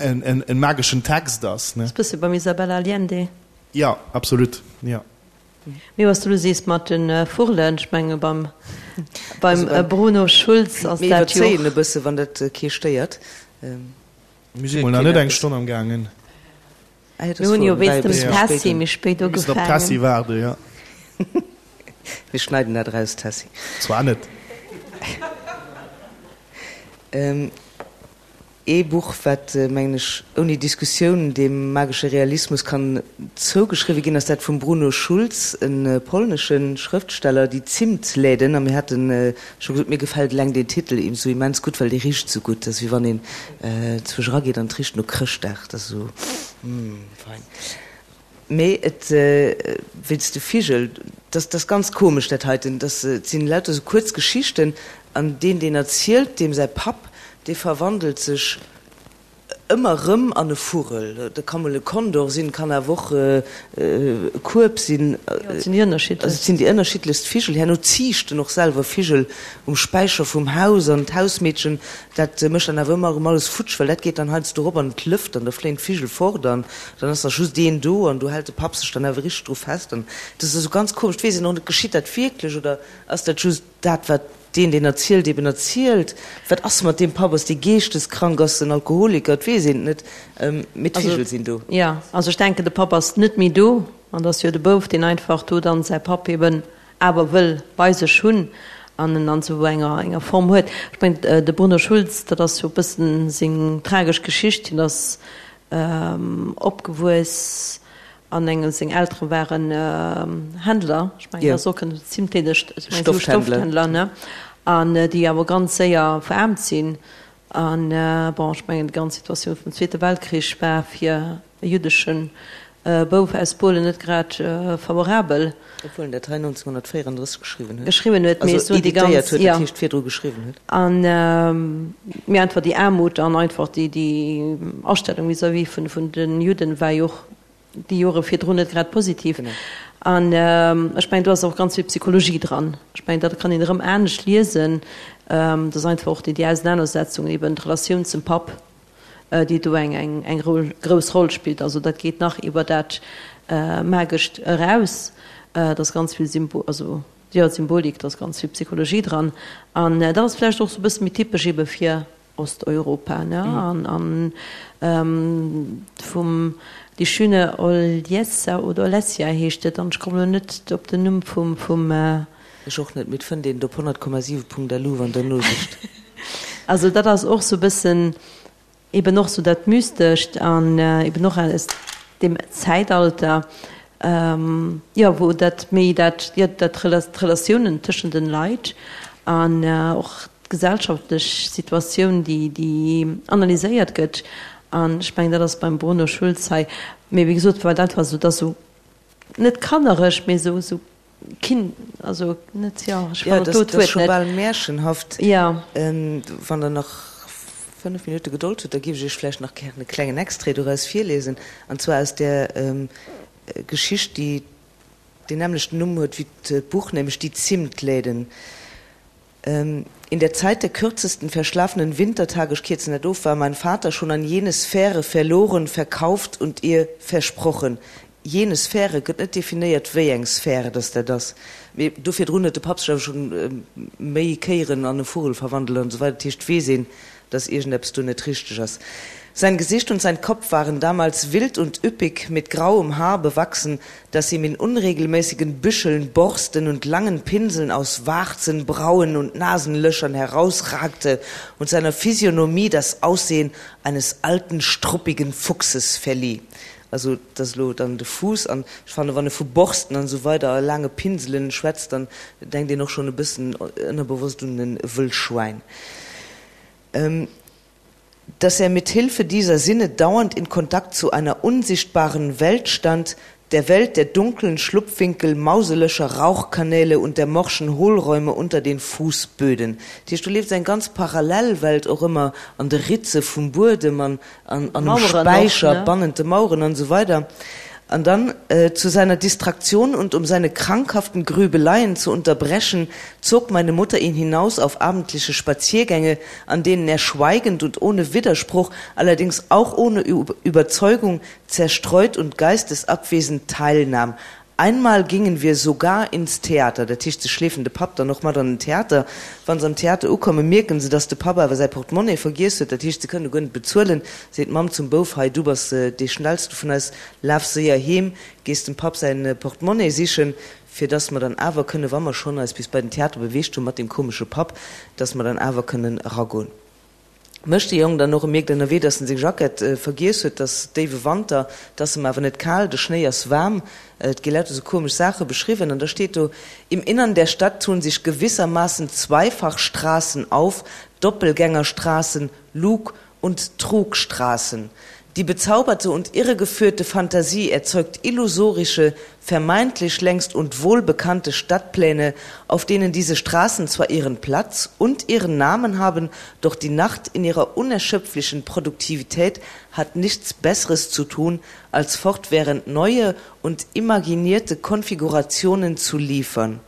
en mageschen Text ass, ne? Ass bësse beim Isabella Allende. Jo, absolut, jo. Mee was du elo sees mat de Vurlen, ech menge beim Bruno Schulz ass dat jo. Mir iwwerzéien e bësse wann dat kee stéiert. Mir si mol nach net eng Stonn am gaangen. Mir hunn jo wéinst dem Tessy méi spéit ugefaangen. Mir müssen op d'Tessy waarden, jo. Mir schneiden dat eraus, Tessy. Zwar net. Ee Buch, wat, mengen ech, ouni Diskussioun dem magesche Realismus kann zougeschriwwe ginn, ass dat vum Bruno Schulz, e polnesche Schrëftsteller, Die Zimtläden. A mir hate scho gesot, mir gefält eleng deen Titel esou immens gutt, well dee richt esou gutt. Dat ass wéi wann een zwousch erageet an et richt no Chrëschtdag. Dat ass esou, mm, fein. Mee et, wéinst de Vigel, dat ass ganz komesch dat heiten, dat sinn lauter esou kuerz Geschichten an deen deen erzielt, deem säi Papp, dee verwandelt sech ëmmer erëm an e Vugel. Dat ka mol e Kondor sinn, kann awer och e Kueb sinn. Jo, et sinn déi ënnerschiddlechst. Also et sinn déi ënnerschiddlechst Vigel. Herno ziicht en och selwer Vigel um Späicher vum Haus an d'Hausmeedchen, dat mécht dann awer ëmmer erëm alles futsch, well dat geet dann heiansdo erop an et lëft an da fléien d'Vigel fort an Dann ass nach just een do an do hält de Papp sech dann awer richteg dru fest an dat ass esou ganz komesch. Et weess een och net, geschitt dat wierklech oder ass dat just dat, wat deen, deen erzielt, eben erzielt? Wat ass mat deem Papp? Ass dee geeschteskrank? Ass en Alkoholiker? Et weess een et net, mee d'Vigel sinn do. Jo, also ech denken, de Papp ass net méi do an et ass jo de Bouf, deen einfach do dann säi Papp eben awer wëll bei sech hunn an en an esou enger enger Form huet. Ech mengen, de Bruno Schulz, dat ass jo e bëssen seng tragesch Geschicht, hien ass Opgewuess an engem, seng Eltere waren Händler, ech mengen, dat ass och en zimtleedegt, ech mengen, esou Stoffhändler, ne, an déi awer ganz séier veraarmt sinn. An bon, ech mengen, déi ganz Situatioun vum Zweete Weltkrich war fir e jüddesche Bouf aus Polen net grad favorabel. Obwuel en dat hei 1934 geschriwwen huet. Geschriwwen huet, mee also editéiert huet, dat heescht virdru geschriwwen huet. An mee einfach déi Aarmut an einfach déi déi Astellung vis-à-vis vun vun de Judden war jo och déi Jore virdrun net grad positiv. An ech mengen do ass och ganz vill Psychologie dran. Ech mengen dat kann een erëm anescht liesen. Dat ass einfach och déi déi Ausenanersetzung eben d'Relatioun zum Papp. déi do eng eng grouss Roll spillt. Also dat geet nach iwwer dat Magescht eraus. Et ass ganz vill Symbo also jo Symbolik, et ass ganz vill Psychologie dran. An dat ass vläicht och sou e bësse méi typesch ebe fir Osteuropa, ne? An an vum Die schöne Oljessa oder Olesja heescht et, an ech kommen elo net op den Numm vum vum. Ech och net, mee et fënnt een et op 100,7.lu wann der nosicht. Also dat ass och sou bëssen eben och sou dat Mystescht an eben och aus deem Zäitalter, jo wou dat méi dat, jo dat d'Relatiounen tëschent den Leit an och d'gesellschaftlech Situatioun déi déi analyséiert gëtt. An ech mengen dat ass beim Bruno Schulz hei, mee wéi gesot war dat war sou, dat ass sou net kannereg, mee sou sou Kind, also net, jo, ech fannen dat Wuert net. Scho bal märchenhaft. Jo. Wann Der nach 5 Minutte Gedold hutt, da géif ech Iech vläicht nach gären e klengen Extrait doraus virliesen, an zwar aus där Geschicht, déi deen nämmlechten Numm huet wéi d'Buch, nämlech Die Zimtläden. In der Zeit der kürzesten verschlafenen Wintertage, ech kierzen dat of, war mein Vater schon an jene Sphäre verloren, verkauft und ihr versprochen. Jene Sphäre gëtt net definéiert, wéi eng Sphäre dass dat ass. Mee do virdrun huet de Papp sech awer schonn méi Kéieren an e Vugel verwandelt an esou weider. Dat heescht, et weess een, dass iergendeppes do net richteg ass. Sein Gesicht und sein Kopf waren damals wild und üppig mit grauem Haar bewachsen, das ihm in unregelmäßigen Büscheln, Borsten und langen Pinseln aus Warzen, Brauen und Nasenlöchern herausragte und seiner Physiognomie das Aussehen eines alten, struppigen Fuchses verlieh. Also et ass elo dann de Fuuss an ech fannen, wann e vu Borsten an esou weider a laange Pinselen schwätzt, dann denkt een och schonn e bëssen ënnerbewosst un e Wëllschwäin. Dass er mit Hilfe dieser Sinne dauernd in Kontakt zu einer unsichtbaren Welt stand, der Welt der dunklen Schlupfwinkel, Mauselöcher, Rauchkanäle und der morschen Hohlräume unter den Fußböden. Dat heescht, do leeft eng ganz Parallelwelt och ëmmer an de Ritze vum Buedem an an um Späicher, bannent de Maueren an esou weider. An dann, Zu seiner Distraktion und um seine krankhaften Grübeleien zu unterbrechen, zog meine Mutter ihn hinaus auf abendliche Spaziergänge, an denen er schweigend und ohne Widerspruch, allerdings auch ohne Überzeugung, zerstreut und geistesabwesend teilnahm. Einmal gingen wir sogar ins Theater. Dat heescht, se schleefen de Papp dann och mat an den Theater. Wa se am Theater ukommen, mierken se, dass de Papp awer säi Portemonnaie vergiess huet. Dat heescht, se kënne guer net bezuelen. Seet d'Mamm zum Bouf, Hei, du bass dee Schnellste vun eis, laf séier heem, gees dem Papp säi Portemonnaie sichen, fir dass mer dann awer kënnen, wa mer schonn eis bis bei den Theater beweegt hunn mat deem komesche Papp, dass mer dann awer kënnen eragoen. Mécht de Jong dann och. E mierkt ënnerwee, dass en seng Jackett vergiess huet. 't ass déiwe Wanter, 't ass em awer net kal, de Schnéi ass waarm. Et gi lauter sou komesch Saache beschriwwen. An da steet do, Im Innern der Stadt tun sich gewissermaßen Zweifachstraßen auf, Doppelgängerstraßen, Lug und Trugstraßen. Die bezauberte und irregeführte Fantasie erzeugt illusorische, vermeintlich längst und wohlbekannte Stadtpläne, auf denen diese Straßen zwar ihren Platz und ihren Namen haben, doch die Nacht in ihrer unerschöpflichen Produktivität hat nichts Besseres zu tun, als fortwährend neue und imaginierte Konfigurationen zu liefern.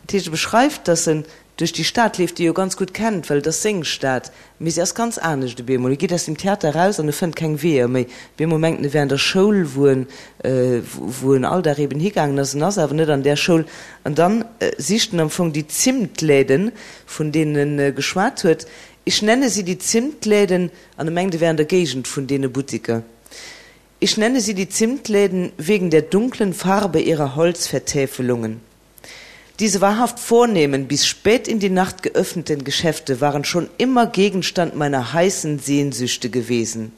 Dat heescht, e beschreift, datt en duerch déi Stad leeft, déi e jo ganz gutt kennt, well et ass seng Stad, mee se ass ganz anescht op eemol. E geet aus dem Theater eraus an e fënnt keng Weeër méi. Op eemol mengt en, e wär an der Schoul, wou en, wou en all Dag eben higaangen ass. En ass awer net an där Schoul. An dann sicht en am Fong déi Zimtläden, vun deenen e geschwat huet. Ich nenne sie die Zimtläden, an e mengt, e wär an der Géigend vun deene Buttiker. Ich nenne sie die Zimtläden wegen der dunklen Farbe ihrer Holzvertäfelungen. Diese wahrhaft vornehmen, bis spät in die Nacht geöffneten Geschäfte waren schon immer Gegenstand meiner heißen Sehnsüchte gewesen.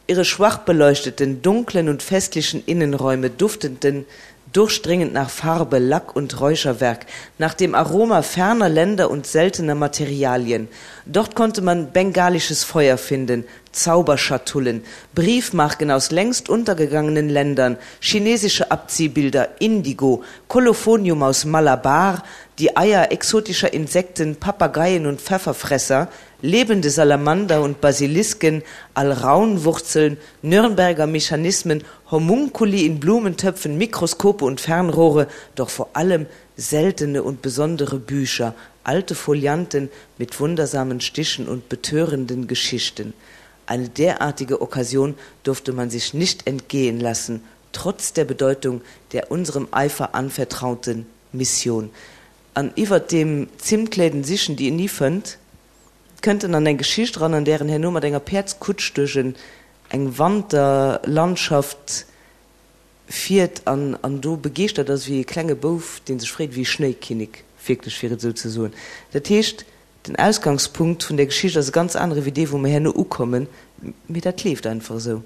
Ihre schwach beleuchteten, dunklen und festlichen Innenräume dufteten durchdringend nach Farbe, Lack und Räucherwerk, nach dem Aroma ferner Länder und seltener Materialien. Dort konnte man bengalisches Feuer finden, Zauberschatullen, Briefmarken aus längst untergegangenen Ländern, chinesische Abziehbilder, Indigo, Kolophonium aus Malabar, die Eier exotischer Insekten, Papageien und Pfefferfresser, lebende Salamander und Basilisken, Alraunwurzeln, Nürnberger Mechanismen, Homunculi in Blumentöpfen, Mikroskope und Fernrohre, doch vor allem seltene und besondere Bücher, alte Folianten mit wundersamen Stichen und betörenden Geschichten. Eine derartige Occasion durfte man sich nicht entgehen lassen, trotz der Bedeutung der unserem Eifer anvertrauten Mission. An iwwert deem Zimtläden sichen, déi en ni fënnt, kënnt en an eng Geschicht eran, an där en herno mat enger Päerdskutsch duerch en eng Wanterlandschaft fiert an an do begeeschtert ass wéi e klenge Bouf, dee sech freet ewéi e Schnéikinnek, wierklech, fir et esou ze soen. Dat heescht, den Ausgangspunkt vun der Geschicht ass e ganz anere wéi dee, wou mer herno ukommen, mee dat leeft einfach esou.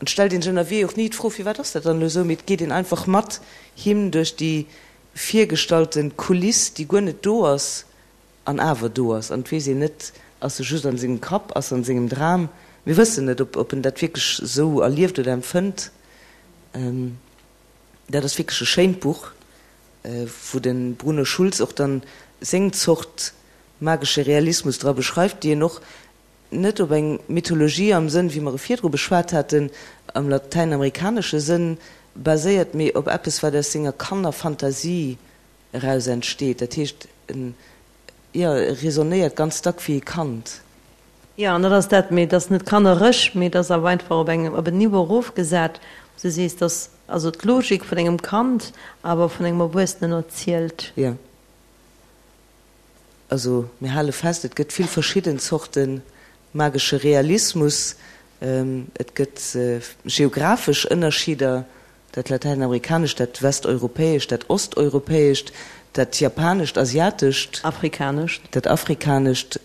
An et stellt een sech ënnerwee och ni d'Fro, firwat ass dat dann elo esou, mee et geet een einfach mat him duerch déi virgestallte Kuliss, déi guer net do ass an awer do ass. An et weess een net, ass e just an sengem Kapp, ass an sengem Dram, mir wëssen net, ob en dat wierklech esou erlieft oder empfënnt. Dat ass wierklech e schéint Buch, wou de Bruno Schulz och dann seng Zort magesche Realismus dra beschreift, déi en och net op eng Mythologie am Sënn, wéi mer e virdru beschwat haten, am latäinamerikanesche Sënn baséiert, mee op eppes, wat aus senger Kannerfantasie eraus entsteet. Dat heescht, en, jo, e raisonnéiert ganz dack wéi e Kand. Jo, an dat ass dat, mee et ass net kannerech, mee et ass awer einfach op engem, op en Niveau erofgesat, wou s de sees, dass. Also d'Logik vun engem Kand, awer vun engem Erwuessenen erzielt. Jo. Also mir hale fest, et gëtt vill verschidden Zorte magesche Realismus. Et gëtt geographesch Ënnerscheeder, dat Latäinamerikanescht, dat Westeuropäescht, dat Osteuropäescht, dat Japanescht, Asiatescht. Afrikanescht. Dat Afrikanescht,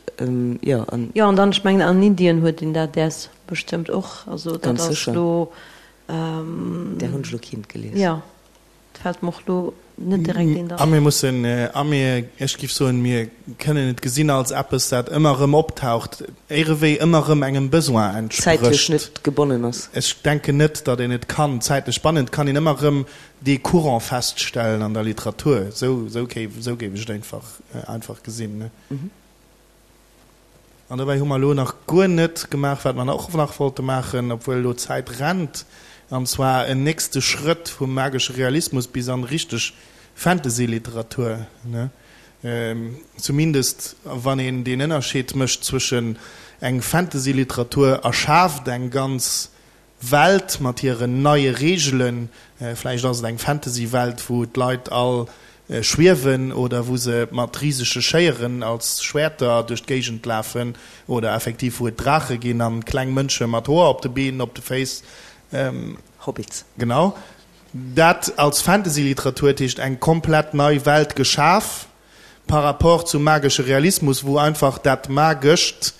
jo. An. Jo, an dann, ech mengen an Indien huet een dat däers bestëmmt och. Also dat ass elo. Där hunn ech elo keent gelies. Jo, et fält mer och elo net direkt eent an. A mir mussen, a mir, ech géif soen, mir kënnen et gesinn als eppes, dat ëmmer erëm optaucht, éirewéi ëmmer erëm engem Besoin entsprécht. Zäitlech net gebonnen ass. Ech denken net, datt een et kann zäitlech bannen. Et kann een ëmmer erëm dee Courant feststellen an der Literatur. Esou, esou géif, esou géif ech et einfach, einfach gesinn. An dobäi hu mer elo nach guer net gemaach, wat mer och nach wollte maachen, obwuel elo d'Zäit rennt, an zwar en nächste Schrëtt vum magesche Realismus bis an richteg Fantasy-Literatur, ne? Zumindest wann een deen Ënnerscheed mécht zwëschen eng Fantasy-Literatur erschaaft eng ganz Welt mat hiren neie Reegelen, vläicht ass et eng Fantasy-Welt, wou d'Leit all schwiewen oder wou se mat risege Schéieren als Schwäerter duerch d'Géigend lafen oder effektiv wou et Draache ginn an kleng Mënsche mat Hoer op de Been, op de Féiss. Hobbits. Genau. Dat als Fantasy-Literatur, dat heescht eng komplett nei Welt geschaf par rapport zum magesche Realismus, wou einfach dat Magescht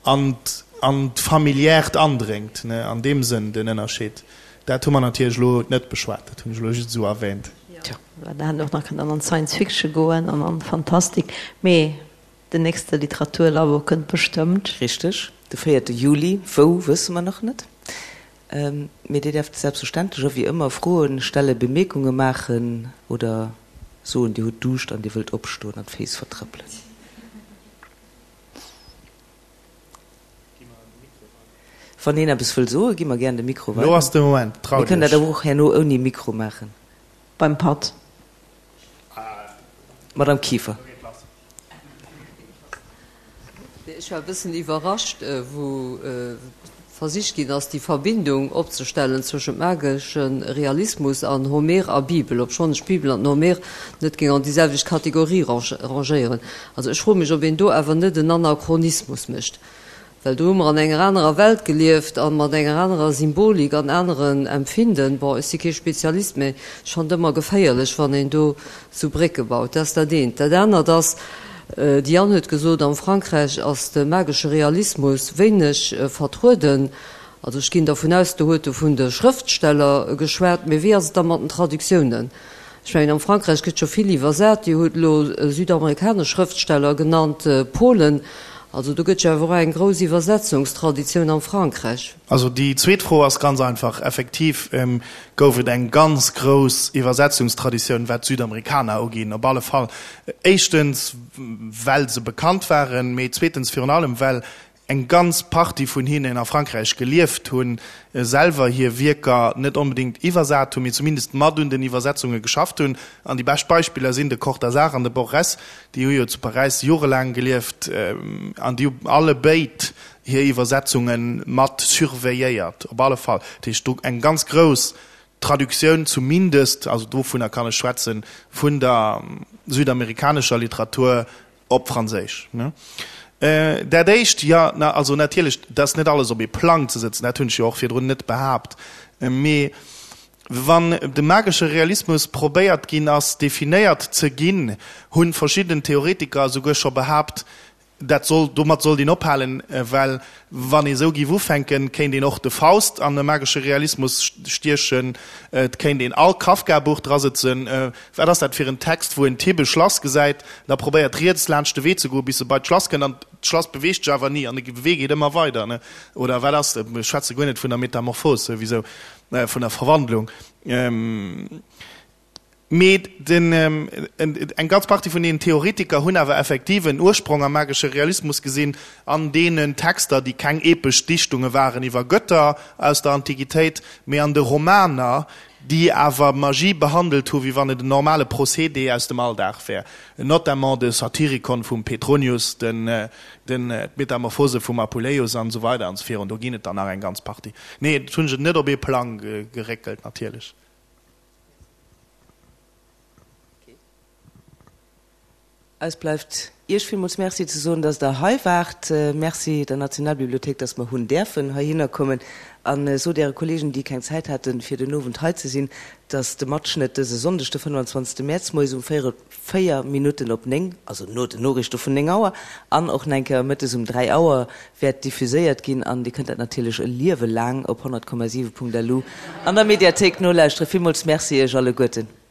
An an d'Familiärt andréngt, ne, an deem Sënn den Ënnerscheed. Dat hu mer natierlech elo net beschwat, dat hunn ech elo just esou erwähnt. Jo, well da hätt een och nach kënnen an Science Fiction goen an an Fantastik, mee den nächste Literaturlabo kënnt bestëmmt. Richteg, de véierte Juli. Wou, wësse mer nach net. Mee Dir däerft selbstverständlech och wéi ëmmer Froen stellen, Bemierkunge maachen oder soen, Dir hutt Duuscht an Dir wëllt opstoen an d'Féiss vertrëppelen. Wann een eppes wëll soen, gi mer gären de Mikro weider. Lo ass de Moment, traut iech. Mir kënnen dat awer och herno ouni Mikro maachen. Beim Patt. Madame Kieffer. Ech war e bëssen iwwerrascht, wou versicht ginn ass, déi Verbindung opzestellen zwëschent magesche Realismus an Homer a Bibel, obschonn ech d'Bibel an den Homer net géing an déi selwecht Kategorie rangéieren. Also ech froe mech, ob een do awer net en Anachronismus mécht, well do hu mer an enger anerer Welt gelieft a mat enger anerer Symbolik an aneren Empfinden. Bon, ech si kee Spezialist, mä ech fannen et ëmmer geféierlech, wann een do sou Brécke baut. Dat ass dat eent. Dat anert ass, D'Diane huet gesot, am Frankräich ass de magesche Realismus wéineg vertrueden. Also ech ginn dervun aus, do huet e vun de Schrëftsteller geschwat. Mee wéi ass et da mat den Traductiounen? Ech mengen, am Frankräich gëtt scho vill iwwersat. Dir hutt elo südamerikanesch Schrëftsteller genannt, Polen. Also do gëtt jo awer och eng grouss Iwwersetzungstraditioun am Frankräich. Also déi zweet Fro ass ganz einfach. Effektiv gouf et eng ganz grouss Iwwersetzungstraditioun, wat d'Südamerikaner uginn, op alle Fall. Éischtens, well se bekannt waren, mee zweetens virun allem, well eng ganz Partie vun hinnen a Frankräich gelieft hunn, selwer hir Wierker net onbedéngt iwwersat hunn, mee zumindest mat un den Iwwersetzunge geschafft hunn. An déi bescht Beispiller sinn de Cortazar an de Borges, déi hu jo zu Paräis jorelaang gelieft an déi hu allebéid hir Iwwersetzunge mat surveilléiert, op alle Fall. Dat heescht, do eng ganz grouss Traductioun zumindest, also dovunner kann ech schwätzen, vun der südamerikanescher Literatur op Franséisch. Dat Éischt, jo, na, also natierlech, dat ass net alles op ee Plang ze sëtzen, dat hunn ech jo och virdrun net behaapt, mee wann de magesche Realismus probéiert ginn ass, definéiert ze ginn, hu verschidden Theoretiker esouguer scho behaapt, Dat soll, domat sollt een ophalen, well wann ee sou géif ufänken, kéint een och de Faust an e magesche Realismus stiechen, et kéint een all Kafka-Buch drasëtzen. Wat ass dat fir en Text, wou en Typ e Schlass gesäit, da probéiert riets laanscht de Wee ze goen, bis e bei d'Schlass kënnt, an d'Schlass beweegt sech awer ni an de Wee geet ëmmer weider, ne? Oder wat ass, ech schwätze guer net vun der Metamorphos souwisou, vun der Verwandlung. Mee den, eng ganz Partie vun deenen Theoretiker hunn awer effektiv en Ursprong am magesche Realismus gesinn, an deenen Texter, déi keng epesch Dichtunge waren iwwer Götter aus der Antiquitéit, mee an de Romaner, déi awer Magie behandelt hu wéi wann et en normale Procédé aus dem Alldag wär, notamment de Satyricon vum Petronius, den, den, d'Metamorphose vum Apuleius an esou weider an esou virun. Do ginn et der nach eng ganz Partie. Nee, dat hunn ech net op ee Plang geréckelt, natierlech. Eis bleift Iech villmools Merci ze soen, dass Der hei waart. Merci der Nationalbibliothéik, dass mer hunn däerfen heihinner kommen. A sot Äre Kollegen, déi keng Zäit haten, fir den Owend hei ze sinn, dass de Matschnëtt dëse Sonndeg, de 25. Mäerz, moies um 4 Minutten op 9, also no den Noriichte vun 9 Auer, an och nach eng Kéier mëttes um 3 Auer wäert diffuséiert ginn. An Dir kënnt dat natierlech e Liewe laang op 100,7.lu an der Mediathéik nolauschteren. Villmools Merci Iech alleguerten.